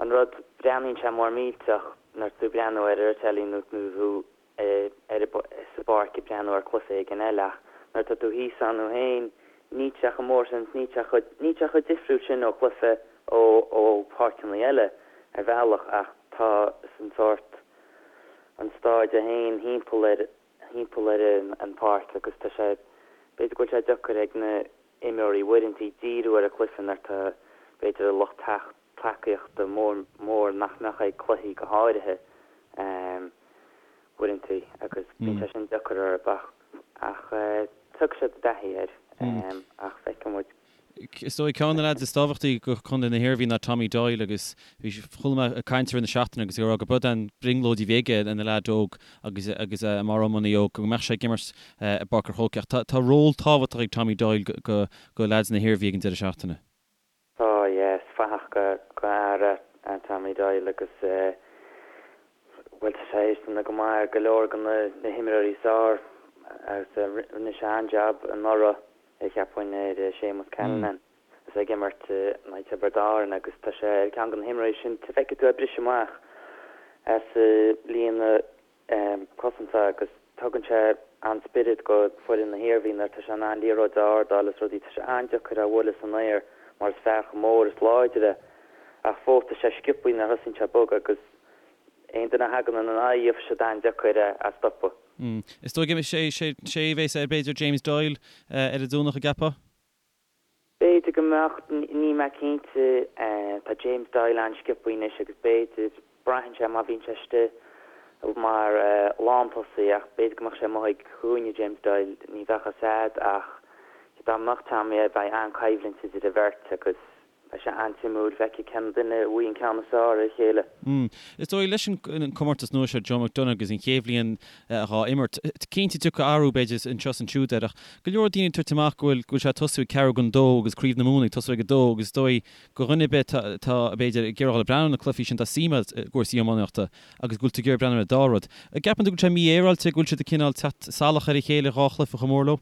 an rud, breathnaíonn sé mór millteach nuair tú ag breathnú air ar an teilí nó nó tú ar sa bpáirc ag breathnú ar cluiche éigin eile ach nuair atá tú thíos ann thú féin níl sé chomh mór sin níl sé chomh, níl sé chomh difriúil sin ó chluiche ó, ó pháirceanna eile ar bhealach ach tá an sórt, an staid é féin thimpeall ar, thimpeall ar an pháirc agus tá sé, b'fhéidir go bhfuil sé deacair ag na imreoirí uaireanta díriú ar an chluiche nuair atá b'fhéidir an lucht tacaíochta mór mór nach mbeadh ag cluichí go háirithe uaireanta agus bíonn sé sin deacair orthu ach ach tiocfaidh siad i dtaithí air ach feicfidh muid. Is dóigh ceann de na leaids is tábhachtaí do chontae na hIarmhí ná Tommy Doyle agus bhí chuala mé ag caint i rith na seachtaine agus ag rá go b'é an brionglóid a bhí aige ina leaid óg agus agus é mar iománaí óg go mbeadh sé ag imirt i bPáirc an Chrócaigh ach tá tá ról tábhachtach ag Tommy Doyle go go leaids na hIarmhí ag an deireadh seachtaine. Tá, yeah, is fathach go go fhear é Tommy Doyle agus eh bhuel tá sé théis déanamh go maith ar go leor de na na himreoirí is fearr agus rinne sé an-jab anuraidh cheapfainn ar Séamus Callanan is é ag imirt in aghaidh Tiobraid Árann agus tá sé ar cheann de na himreoirí sin feicfidh tú é ag briseadh amach as líne cosanta agus tugann sé an-spiorad go foireann na hIarmhí nuair atá sé in ann liathróid a ardáil is rudaí. Tá sé an-deacair é a bhualadh san aer mar is fear chomh mór is láidir é ach fós tá sé sciobtha nuair a thosaíonn sé ag bogadh agus aon duine a thagann ina aghaidh gheobhaidh siad an-deacair é a stopadh. Is dóigh go sé sé a bheas ar b'fhéidir James Doyle ar an Domhnach an gceapfá? B'fhéidir go mbeadh, níl mé cinnte. Tá James Doyle an-sciobtha anois agus b'fhéidir, braitheann sé má bhíonn sé istigh mar lántosaí ach b'fhéidir go mbeadh sé amuigh ag cúinne James Doyle, ní bheadh a fhios a'd ach dá mbeadh Tommy air bheadh an-choimhlint idir an bheirt agus Beidh sé an-suimiúil feiceáil cén duine a bhfaighidh an ceann is fearr ar a chéile. Is dóigh, leis an comórtas nua seo, Joe McDonagh agus an chéad bhliain dhá imirt, cinnte tiocfaidh athrú b'fhéidir anseo is ansiúd air ach go leor daoine ag tabhairt amach go bhfuil go bhfuil sé ag tosú ag ceathrú don dó agus Craobh na Mumhan ag tosú ag a dó agus is dóigh go dhuine ar bith atá b'fhéidir ag iarraidh dul ag breathnú ar na cluichí sin tá suim agat i gcúrsaí iománaíochta agus go bhfuil tú ag iarraidh breathnú ar an dá rud. An gceapann tú go bhfuil sé mífhéaráilte go bhfuil siad ag cineál teacht salach ar a chéile dhá chluiche chomh mór leo?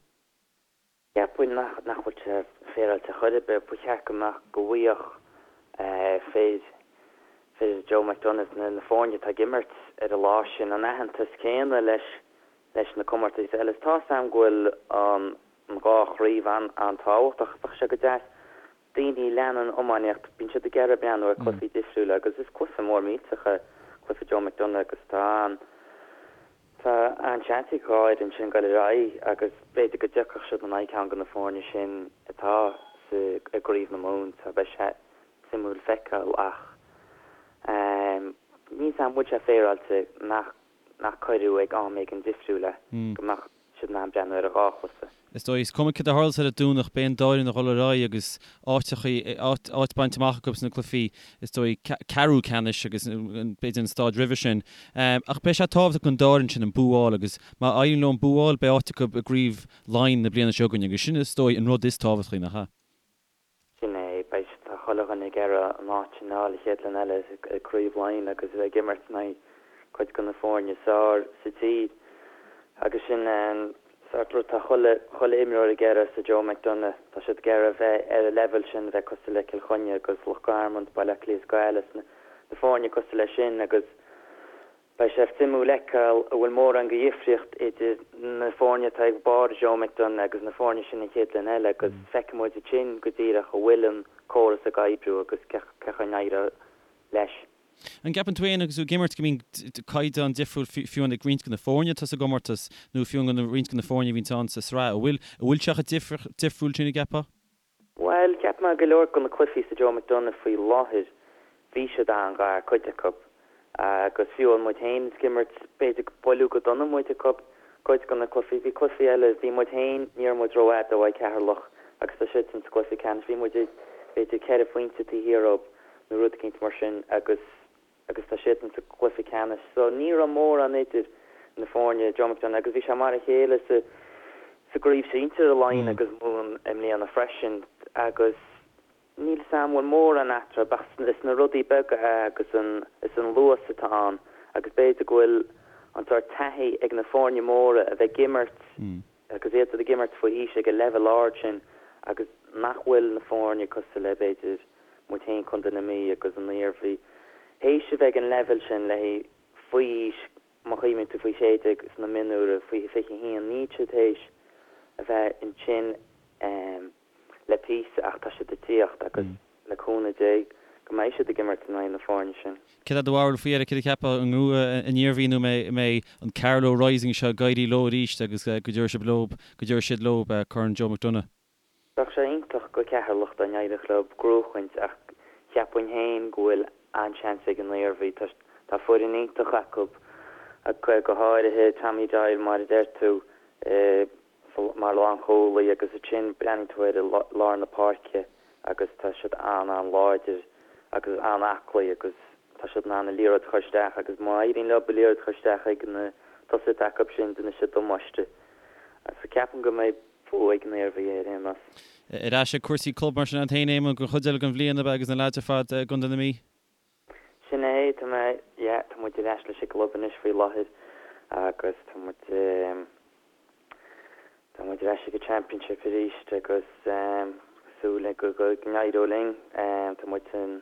Cheapfainn nach nach bhfuil sé féaráilte chor ar bith. Ba cheart go mbeadh, go bhfaigheadh fir, fir Joe McDonagh, na na foirne atá ag imirt ar an lá sin, an aitheantas céanna leis leis na comórtais eile. Is tá 'fhios a'm go bhfuil an an dhá chraobh an an-tábhachtach. Bheadh sé go deas daoine a leanann iománaíocht, bíonn siad ag iarraidh breathnú ar cluichí difriúla agus is cluiche mór millteach é cluiche Joe McDonagh agus tá an Tá an-seans ag dhá fhoireann sin dul ar aghaidh agus b'fhéidir go dtiocfadh siad in aghaidh ceann de na foirne sin atá sa i gCraobh na Mumhan so beidh sé suimiúil feiceáil ach níl 'fhios a'm an bhfuil sé féaráilte nach nach cuireadh ag am éigin difriúil é go mbeadh siad in ann breathnú ar an dhá chluiche. Is dóigh, is cuma céard a tharlós ar an Domhnach, beidh an dá fhoireann ag dul ar aghaidh agus áiteachaí, áit bainte amach acu sna cluichí, is dóigh, ceathrú ceannais agus b'fhéidir an stáid roimhe sin. Ach beidh sé tábhachtach don dá fhoireann sin an bua a fháil agus má éiríonn leo an bua a fháil, beidh áit acu i gCraobh Laighean na bliana seo chugainn agus sin, is dóigh, an rud is tábhachtaí, nach ea? Sin é, beidh tá chuile dhuine ag iarraidh an áit sin a fháil an chéad bhliain eile i gCraobh Laighean agus a bheith ag imirt in aghaidh cuid de na foirne is fearr sa tír. Agus sin an Sórt rud, tá chuile, chuile imreoir ag iarraidh sa Joe McDonagh, tá siad ag iarraidh bheith ar an leibhéal sin, bheith cosúil le Cill Chainnigh agus Loch Garman, Baile Átha Cliath is Gaillimh, na, na foirne cosúil leis sin agus beidh sé suimiúil fheiceáil an bhfuil mórán de dhifríocht idir na foirne atá ag barr Joe McDonagh agus na foirne sin an chéad bhliain eile agus feicfidh muid ansin go díreach an bhfuil an córas ag oibriú agus cén chaoi a n-éireoidh leis. An gceapann tú féin agus tú ag imirt go mbíonn caighdeán difriúil fiú ag roinnt de na foirne atá sa gcomórtas nó fiú ag roinnt de na foirne a bhíonns ann sa sraith? An bhfuil, an bhfuil sé chomh difriúil sin an gceapfá? Bhuel, cheap mé go leor de na cluichí sa Joe McDonagh faoi láthair, bhí siad an-ghar, cuid acu. Agus fiú amháin muid féin ag imirt, b'fhéidir gur buaileadh go dona muid ag cuid de na cluichí. Bhí cluichí eile, bhí muid féin, ní raibh muid rófhada ó Cheatharlach agus tá siadsan sa gcluiche ceannais, bhí muid b'fhéidir ceithre phointe taobh thiar dóibh nó rud eicínt mar sin agus agus tá siadsan sa gcluiche ceannais. So ní raibh mórán idir na foirne, Joe McDonagh, agus bhí sé mar a chéile sa sa gcraobh sinsir i Laighin agus Mumhan i mbliana freisin agus níl 'fhios a'm an bhfuil mórán eatarthu ach is na rudaí beaga é agus an is an luas atá ann agus b'fhéidir go bhfuil an sórt taithí ag na foirne móra a bheith ag imirt agus iad ag imirt faoi aois ag an leibhéal ard sin agus nach bhfuil na foirne cosúil le b'fhéidir muid féin Contae na Mí agus an Iarmhí théis a bheith ag an leibhéal sin le faoi aois má chuimhníonn tú faoi 16 sna mionúir faoi 21 níl siad théis a bheith ansin le píosa ach tá siad ag tíocht agus le cúnamh Dé go mbeidh siad ag imirt in aghaidh na foirne sin. Céard é do bharúil faoi Eric, céard a cheapfá, an ngnóthóidh an Iarmhí nó an mbeidh an Carlow Rising seo ag éirí leo arís agus go dtabharfaidh siad leo, go dtabharfaidh siad leo Corn Joe McDonagh? Bheadh sé iontach go Ceatharlach dá n-éireodh leo gnóchaint ach cheapfainn féin go bhfuil an-seans ag an Iarmhí. Tá foireann iontach acu, go háirithe Tommy Doyle mar a deir tú. mar lánchúlaí agus ansin breathnaíonn tú ar lár na páirce agus tá siad an-an-láidir agus an-aclaí agus tá siad in ann an liathróid a chur isteach agus má éiríonn leo an liathróid a chur isteach ag na tosaithe atá acu sin déanfaidh siad damáiste. So ceapaim go mbeidh bua ag an Iarmhí ar aon nós. Ar ais ag cúrsaí club mar sin agat féin Éamonn don chuid eile den bhliain ab ea agus na leaids ar fad i gContae na Mí? Sin é, tá mé, yeah, tá muid ar ais leis an gclub anois faoi láthair agus tá muid, tá muid ar ais ag an Championship arís agus súil go go n-éireoidh linn. Tá muid san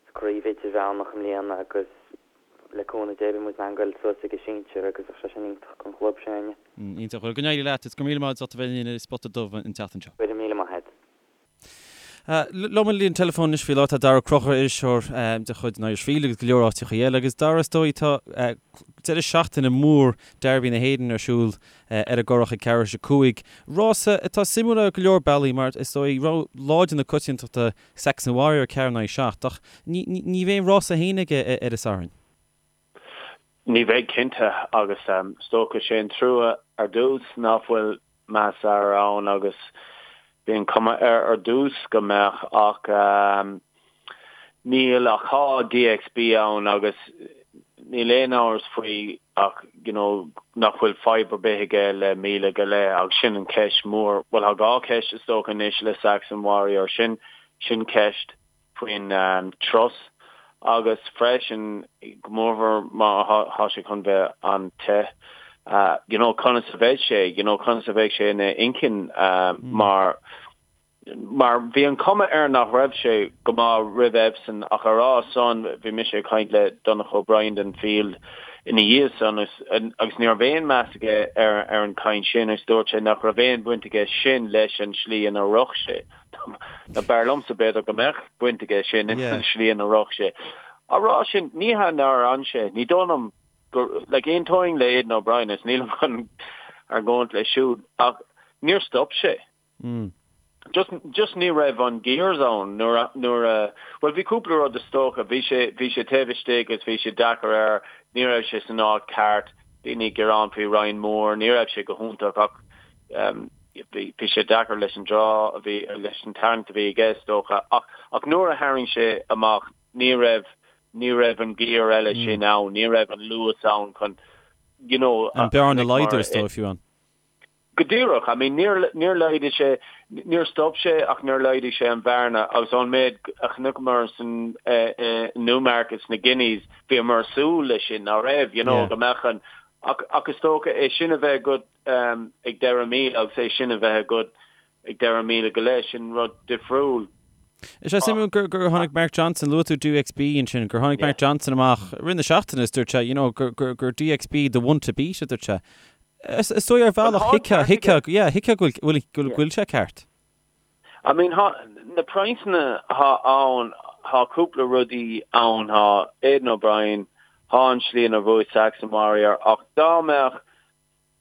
sa craobh idirmheánach i mbliana agus le cúnamh Dé beidh muid in ann goil suas ag an sinsir agus bheadh sé sin iontach don chlub s'againne. Iontach. Bhuel, go n-éirí leat is go raibh míle maith agat as ucht a bheith linn ar Spota Dubh an tseachtain seo. Go raibh míle maith agat. Liom ar an líne teileafóin anois faoi láthair tá Daragh Ó Conchúir, iriseoir de chuid an Irish Field agus go leor áiteacha eile. Agus Daragh, is dóigh tá deireadh seachtaine mór Derby na hÉireann ar siúl ar an gCurrach ag ceathrú tar éis 5. Rása atá suimiúil ar go leor bealaí mar is dóigh rogha láidir na coitiantachta Saxon Warrior 4 in aghaidh 7 ach ní bheidh an rása féin aige ar an Satharn. Ní bheidh cinnte agus is dócha sé an trua ar dtús nach bhfuil Masar ann agus bhí an cuma air ar dtús go mbeadh ach níl ach tá DXB ann agus níl aon amhras faoi ach you know nach bhfuil fadhb ar bith aige le míle go leith agus sin an cheist mhór, bhuel tá dhá cheist is dócha anois le Saxon Warrior, sin sin ceist. faoin turas agus freisin go mórmhór má thá sé chun bheith an-te you know conas a bheidh sé you know conas a bheidh sé ina inchinn mar mar bhí an cuma air nach raibh sé go maith roimh Epsom ach a rá san bhí mise ag caint le Donncha O'Brien den Field ina dhiaidh san agus ní raibh aon meas aige ar ar an chaint sin agus dúirt sé nach raibh aon bhaint aige sin leis an slí ina rith sé. Now b'fhearr liomsa b'fhéidir go mbeadh baint aige sin leis an slí ina rith sé. Á rá sin, ní hea nár fhan sé, ní dóigh liom gur, like, aontóinn le Aidan O'Brien is nílim chun argóint leis siúd, ach níor stop sé. Just, just ní raibh an gears ann nuair a, nuair a, bhuel bhí cúpla rud is dócha, bhí sé, bhí sé taobh istigh agus bhí sé deacair air, ní raibh sé san áit ceart, daoine ag gearán faoi Ryan Moore, ní raibh sé go hiontach ach, Bhí sé deacair leis an draw a bhí, leis an tarraingt a bhí aige is dócha, ach ach nuair a tharraing sé amach ní raibh, ní raibh an gear eile sin ann, ní raibh an luas ann chun, you know, An bearna a laghdú is dóigh fiú ann. Go díreach, I mean níor, níor laghdaigh sé, níor stop sé ach níor laghdaigh sé an bhearna agus ón méid a chonaiceamar san i Newmarket sna Guineas, bhíomar ag súil leis sin, ná raibh, you know, go mbeadh an. Ach ach is dócha é sin a bheith agat ag deireadh míle agus é sin a bheith agat ag deireadh míle go leith, sin rud difriúil. Is é suimiúil gur gur tháinig Mark Johnston, luaigh tú DXB ansin, gur tháinig Mark Johnston amach i rith na seachtaine is dúirt sé, you know, gur gur gur DXB the one to beat a dúirt sé. Is is dóigh ar bhealach thuigfeá thuigfeá yeah thuigfeá go bhfuil go bhfuil sé ceart. I mean thá na praghsanna thá ann, thá cúpla rudaí ann, thá Aidan O'Brien, thá an slí inar bhuaigh Saxon Warrior ach dá mbeadh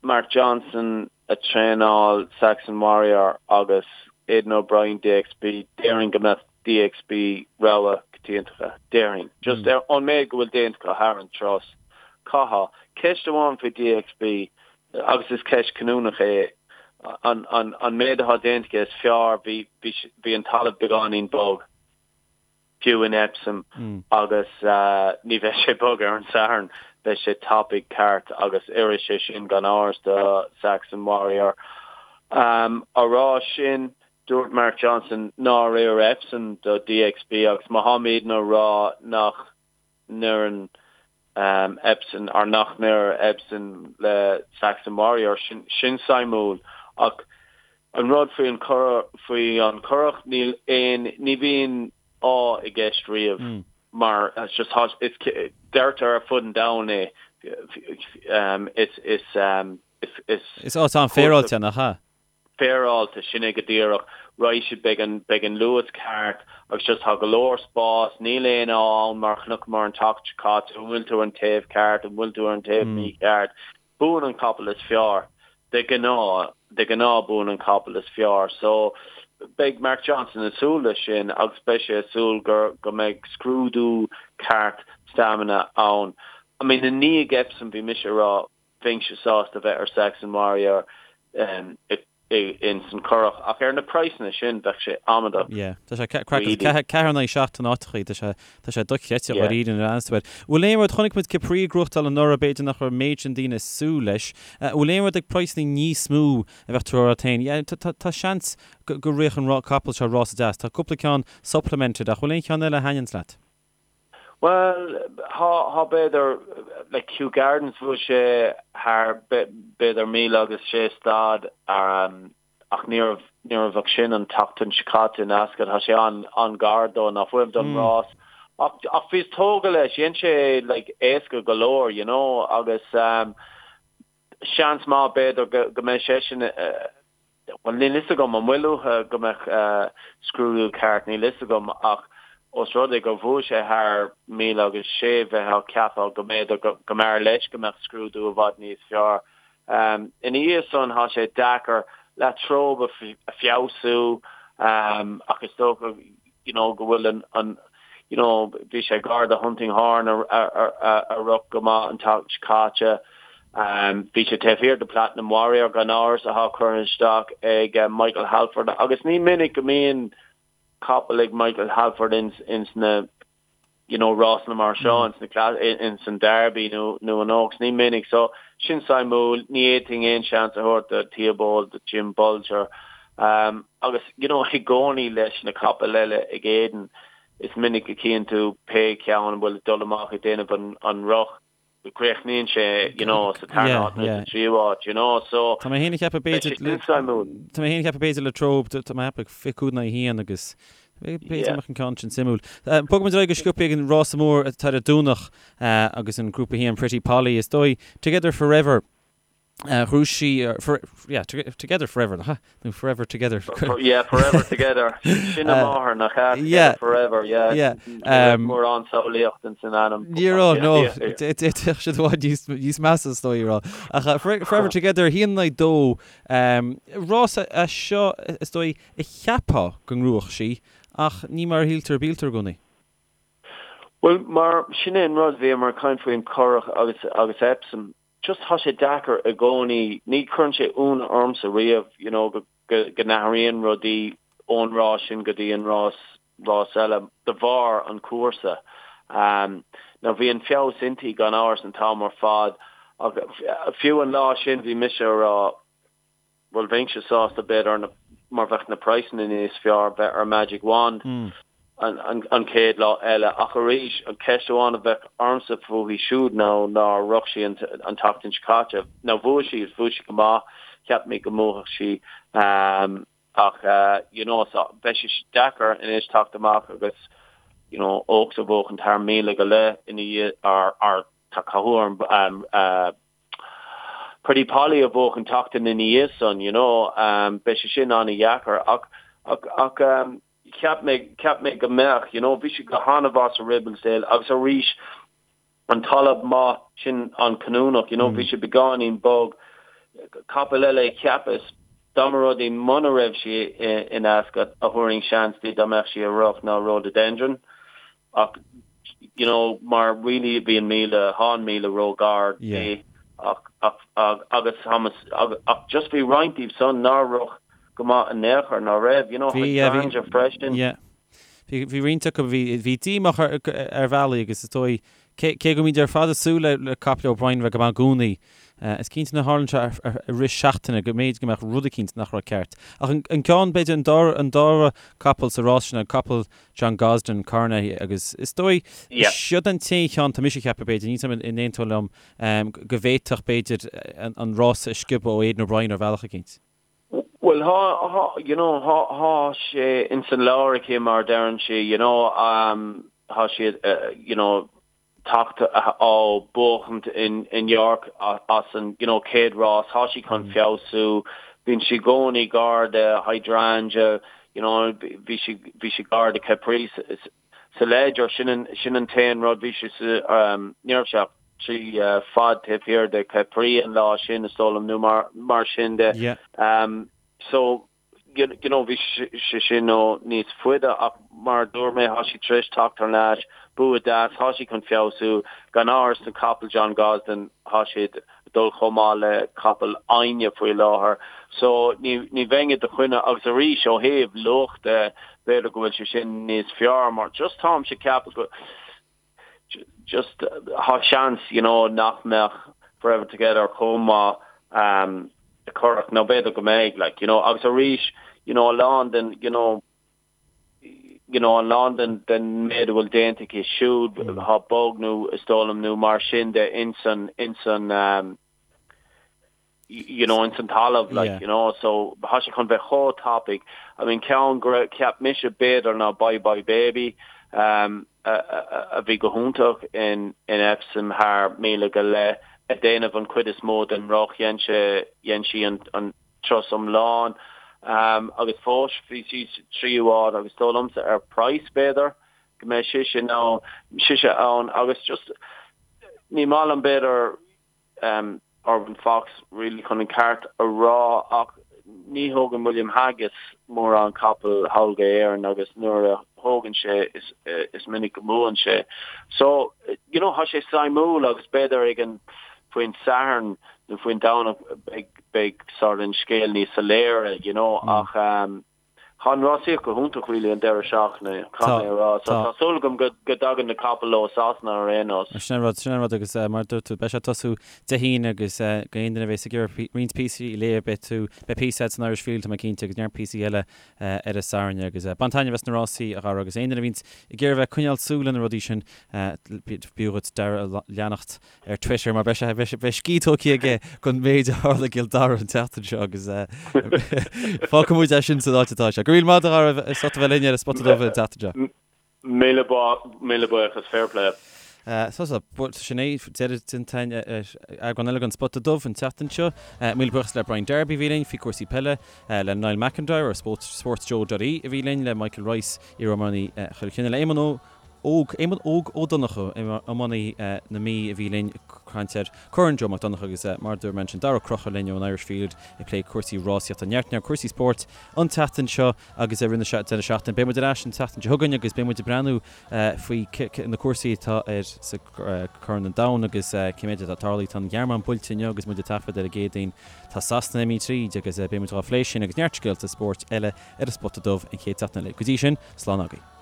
Mark Johnston ag traenáil Saxon Warrior agus Aidan O'Brien DXB, déarfainn go mbeadh DXB rogha coitianta acu, déarfainn. Just ar an méid go bhfuil déanta acu thar an turas. Caithfidh. Ceist amháin faoi DXB, agus is ceist cinniúnach é, an, an, an méid atá déanta aige is fearr, bhí, bhí, bhí an talamh beagáinín bog. fiú in Epsom agus ní bheidh sé bog ar an Satharn, beidh sé tapaidh ceart agus oirfidh sé sin gan amhras do Saxon Warrior. Á rá sin, dúirt Mark Johnston nár oir Epsom do DXB agus má tháimidne á rá nach n-oireann Epsom or nach n-oir Epsom le Saxon Warrior, sin sin suimiúil ach an rud faoi an faoi an Currach níl aon ní bhíonn ádh i gceist riamh mar it's just tá is deirtear ar fud an domhain é is is is is Is áit an-fhéaráilte nach ea? féaráilte, sin é go díreach. Raghaidh siad, beidh an, beidh an luas ceart agus just tá go leor spás, níl aon ádh ann mar chonaiceamar an tseachtain seo caite, an bhfuil tú ar an taobh ceart, an bhfuil tú ar an taobh mícheart. Buann an capall is fearr, de ghnáth, de ghnáth buann an capall is fearr. So beidh Mark Johnston ag súil leis sin agus beidh sé ag súil gur, go mbeidh scrúdú ceart stamina ann. I mean i ndiaidh Epsom bhí mise ag rá, Bheinnse sásta bheith ar Saxon Warrior ins an Currach ach ar na praghsanna sin bheadh sé amaideach. Yeah, tá sé craiceáilte. 4 in aghaidh 7 in áiteachaí, tá sé tá sé dochreidte dháiríre nuair a aithneos tú air. Bhfuil aon rud, chonaic muid Capri ag gnóthachtáil anuraidh, b'fhéidir nach raibh an méid sin daoine ag súil leis. Bhfuil aon rud ag praghsanna níos mó a bheadh tú a rá féin, yeah, tá tá seans go go rithfeadh an capall seo rása deas. Tá cúpla ceann supplemented ach bhfuil aon cheann eile a thaitníonns leat? Bhuel, thá, thá b'fhéidir, like Kew Gardens bhuaigh sé thar b'fhéidir míle agus sé stad ach ní raibh, ní raibh ach sin an tseachtain seo caite in Ascot, thá sé an, an-ghar dó, ná fuaim don rás. Ach, ach bhíos tógtha leis, dhein sé like éasca go leor, you know, agus seans maith b'fhéidir go, go mbeidh seisean, Bhuel, níl fhios agam an bhfuil uathu go mbeadh scrúdú ceart, níl fhios agam, ach ós rud é gur bhuaigh sé thar míle agus sé, bheifeá ag ceapadh go mb'fhéidir go mb'fhearr leis go mbeadh scrúdú i bhfad níos fearr. Ina dhiaidh san, tá sé deacair La Trobe a feabhsú ach is dócha you know go bhfuil an, an, you know bhí sé gar do Hunting Horn a, a, a rith go maith an tseachtain seo caite. Bhí sé taobh thiar de Platinum Warrior gan amhras atá curtha isteach ag Michael Halford agus ní minic go mbíonn capall ag Michael Halford ins, ins na you know rásanna mar seo ins na ins an Derby nó nó an Oaks ní minic so sin suimiúil ní fhéadfainn aon seans a thabhairt do Theobald do Jim Bolger um, agus you know i gcónaí leis na capaill eile ag Aidan is minic a chíonn tú pé ceann a bhfuil ag dul amach ag déanamh an, an rith go gcríochnaíonn sé you know sa tarna háit nó sa tríú háit you know so Tá mé féin ag ceapadh b'fhéidir le Tá mé féin ag ceapadh b'fhéidir La Trobe tá mé ag ceapadh 25 in aghaidh 1 agus b'fhéidir mbeadh an ceann sin suimiúil. Bogfaidh muid ar aghaidh go sciobtha ag an rása mór atá ar an Domhnach agus an Grúpa 1 Pretty Polly is dóigh Together Forever Ghnóthaigh sí, yeah, Together Forever, nach ea? Nó Forever Together. Yeah, Forever Together. Sin a máthair, nach ea? Together Forever, yeah. Yeah. Ní raibh mórán samhlaíocht ins an ainm. Ní raibh, no. D'fhéadfadh siad i bhfad níos measa is dóigh a rá. Ach Forever Together, 1 in aghaidh 2. Rás é seo, is dóigh, a cheapfá go ngnóthódh sí, ach ní mar a shíltear a bíltear i gcónaí. Bhuel, mar sin é an rud, bhíomar ag caint faoin Currach agus agus Epsom. just tá sé deacair i gcónaí, ní chuireann sé ionadh ormsa riamh you know go go go n-athraíonn rudaí ón rás sin go dtí an rás rás eile de bharr an chúrsa. Um now bhí an feabhas inti gan amhras an t-am ar fad ach fiú an lá sin bhí mise a rá bhuel bheinnse sásta b'fhéidir mar bheadh na praghsanna níos fearr bheith ar Magic Wand. an chéad lá eile ach arís an cheist amháin a bheadh ormsa fúithi siúd ná nár rith sí an tseachtain seo caite. Now bhuaigh sí agus bhuaigh sí go maith, cheap mé go mbuafadh sí ach you know so beidh sé deacair anois teacht amach agus you know Oaks a bhuachan thar míle go leith ina dhiaidh or tá cathú orm Pretty Polly a bhuachan tseachtain ina dhiaidh san you know beidh sé sin an-dheacair ach ach ach Cheap mé, cheap mé go mbeadh, you know, bhí sí go han-mhaith sa Ribblesdale agus arís an talamh maith sin an-chinniúnach, you know, bhí sé beagáinín bog. Capall eile a cheapas, dá mba rud é muna raibh sí in Ascot a thabharfainn seans di dá mbeadh sí ag rith ná Rhododendron. Ach, you know, mar really bhí an 1000, thá an 1000 ró-ghar di ach, ach, agus Thomas, ach just bhí roinnt díobh san nár rith go maith in aon chor, ná raibh, you know, Hydrangea freisin. Yeah. Bhí, bhí roinnt acu, bhí, bhí díomách ar, ar bhealaí agus is dóigh, cé, cé go mbíonn ar fad ag súil le, le caiple O'Brien bheith go maith i gcónaí, is cinnte nuair a tharlaíonn sé ar, ar, i rith seachtaine go mb'fhéidir go mbeadh rud eicínt nach raibh ceart. Ach an, an ceann, b'fhéidir, an dara, an dara capall sa rás sin, an capall John Gosden, Coronet agus is dóigh, siod an t-aon cheann, tá mise ag ceapadh b'fhéidir, níl 's agam an aontófá liom, go bhféadfadh b'fhéidir an rása a sciobadh ó Aidan O'Brien ar bhealach eicínt. Bhuel thá, thá, you know, thá, thá sé ins an leabhar aici mar a deireann sí, you know, thá siad, you know, teacht ó buachaint in York as an you know chéad rás, thá sí chun feabhsú, bíonn sí i gcónaí gar do Hydrangea, you know bhí sí bhí sí gar do Capri sa Leger, sin an sin an t-aon rud, bhí sí sa ní raibh sé ach 3 fad taobh thiar de Capri an lá sin is dóigh liom nó mar mar sin de. Yeah. So you know, bhí sé sin ó níos faide ach mar a dúirt mé, thá sí tar éis teacht thar n-ais, bua deas, thá sí chun feabhsú, gan amhras na capaill John Gosden, thá siad ag dul chomh maith le capaill éinne faoi láthair. So ní, ní bheinn i do choinne agus arís ó thaobh luach de, b'fhéidir go bhfuil sé sin níos fearr mar just táimse ag ceapadh go, just thá seans you know nach mbeadh Forever Together chomh maith um i Currach nó b'fhéidir go mbeidh like you know agus arís you know a lán den you know you know a lán den den méid a bhfuil déanta aici siúd thá bog nó is dóigh liom nó mar sin de insan insan um you know, ins an talamh, like, yeah. you know, so thá sé chun bheith chomh tapaidh. I mean, ceann go raibh, cheap mise b'fhéidir ná Bye Bye Baby, um, a, a, a bhí go hiontach in, in Epsom thar míle go leith, ag déanamh an chuid is mó den rith, dhein sé, dhein sí an, an turas iomlán, um, agus fós bhí sí sa tríú háit agus dóigh liomsa ar price b'fhéidir go mbeidh sise ann, sise ann agus just ní maith liom b'fhéidir um, Urban Fox really chun an ceart a rá ach ní thógann William Haggas mórán capall thall go hÉirinn agus nuair a thógann sé is, is minic go mbuann sé. So, you know, thá sé suimiúil agus b'fhéidir ag an faoin Satharn nó faoin Domhnach beidh, beidh sort an scéal níos soiléire, you know, mm. ach um, Tá an rásaíocht go hiontach really an deireadh seachtaine, caithfidh mé a rá. So tá súil agam go dtagann na capaill ó Sasana ar aon nós. Sin an rud, sin an rud agus mar a dúirt tú, beidh sé ag tosú Dé hAoine agus go aon duine a bheas ag iarraidh roinnt píosaí a léamh, beidh tú, beidh píosa agat san Irish Field, tá mé cinnte, agus neart píosaí eile ar an Satharn agus bain taitneamh as na rásaí, a Dhara, agus aon duine a bhíonns ag iarraidh bheith ag coinneáil súil ar na rudaí sin, b'fhiú dhuit Dara a leanacht. ar Twitter mar beidh sé, beidh sé, beidh scíth tógtha aige den méid a tharla i gCill Dara an tseachtain seo agus fágfaidh muid é sin san áit atá sé. Go raibh míle maith agat a Dhara as ucht a bheith linn ar an Spota Dubh an tseachtain seo. Míle míle buíochas, fair play. So so, sin é deireadh déanta ar eagrán eile den Spota Dubh an tseachtain seo. Míle buíochas le Brian Darby a bhí linn faoi cúrsaí peile, le Niall McIntyre ar sportsjoe.ie a bhí linn, le Michael Rice, iar-iománaí Chill Chainnigh, le Éamonn Ó Óg, Éamonn Óg Ó Donnchú, iománaí na Mí a bhí linn ag caint ar Corn Joe Mac Donncha agus mar a dúirt mé ansin, Dara Ó Conchúir linn ón Irish Field ag plé cúrsaí rásaíochta, neart neart cúrsaí spóirt an tseachtain seo agus i rith na deireadh seachtaine. Beidh muid ar ais an tseachtain seo chugainn agus beidh muid ag breathnú faoi na cúrsaí atá ar sa Corn an Domhain agus cé méid atá tarlaithe. Tá an Ghearmáin buailte inniu agus muid ag taifead ar an gCéadaoin. Tá Sasana imithe tríd agus beidh muid dhá phlé sin agus neart scéalta spóirt eile ar an Spota Dubh an chéad tseachtain eile. Go dtí sin, slán agaibh.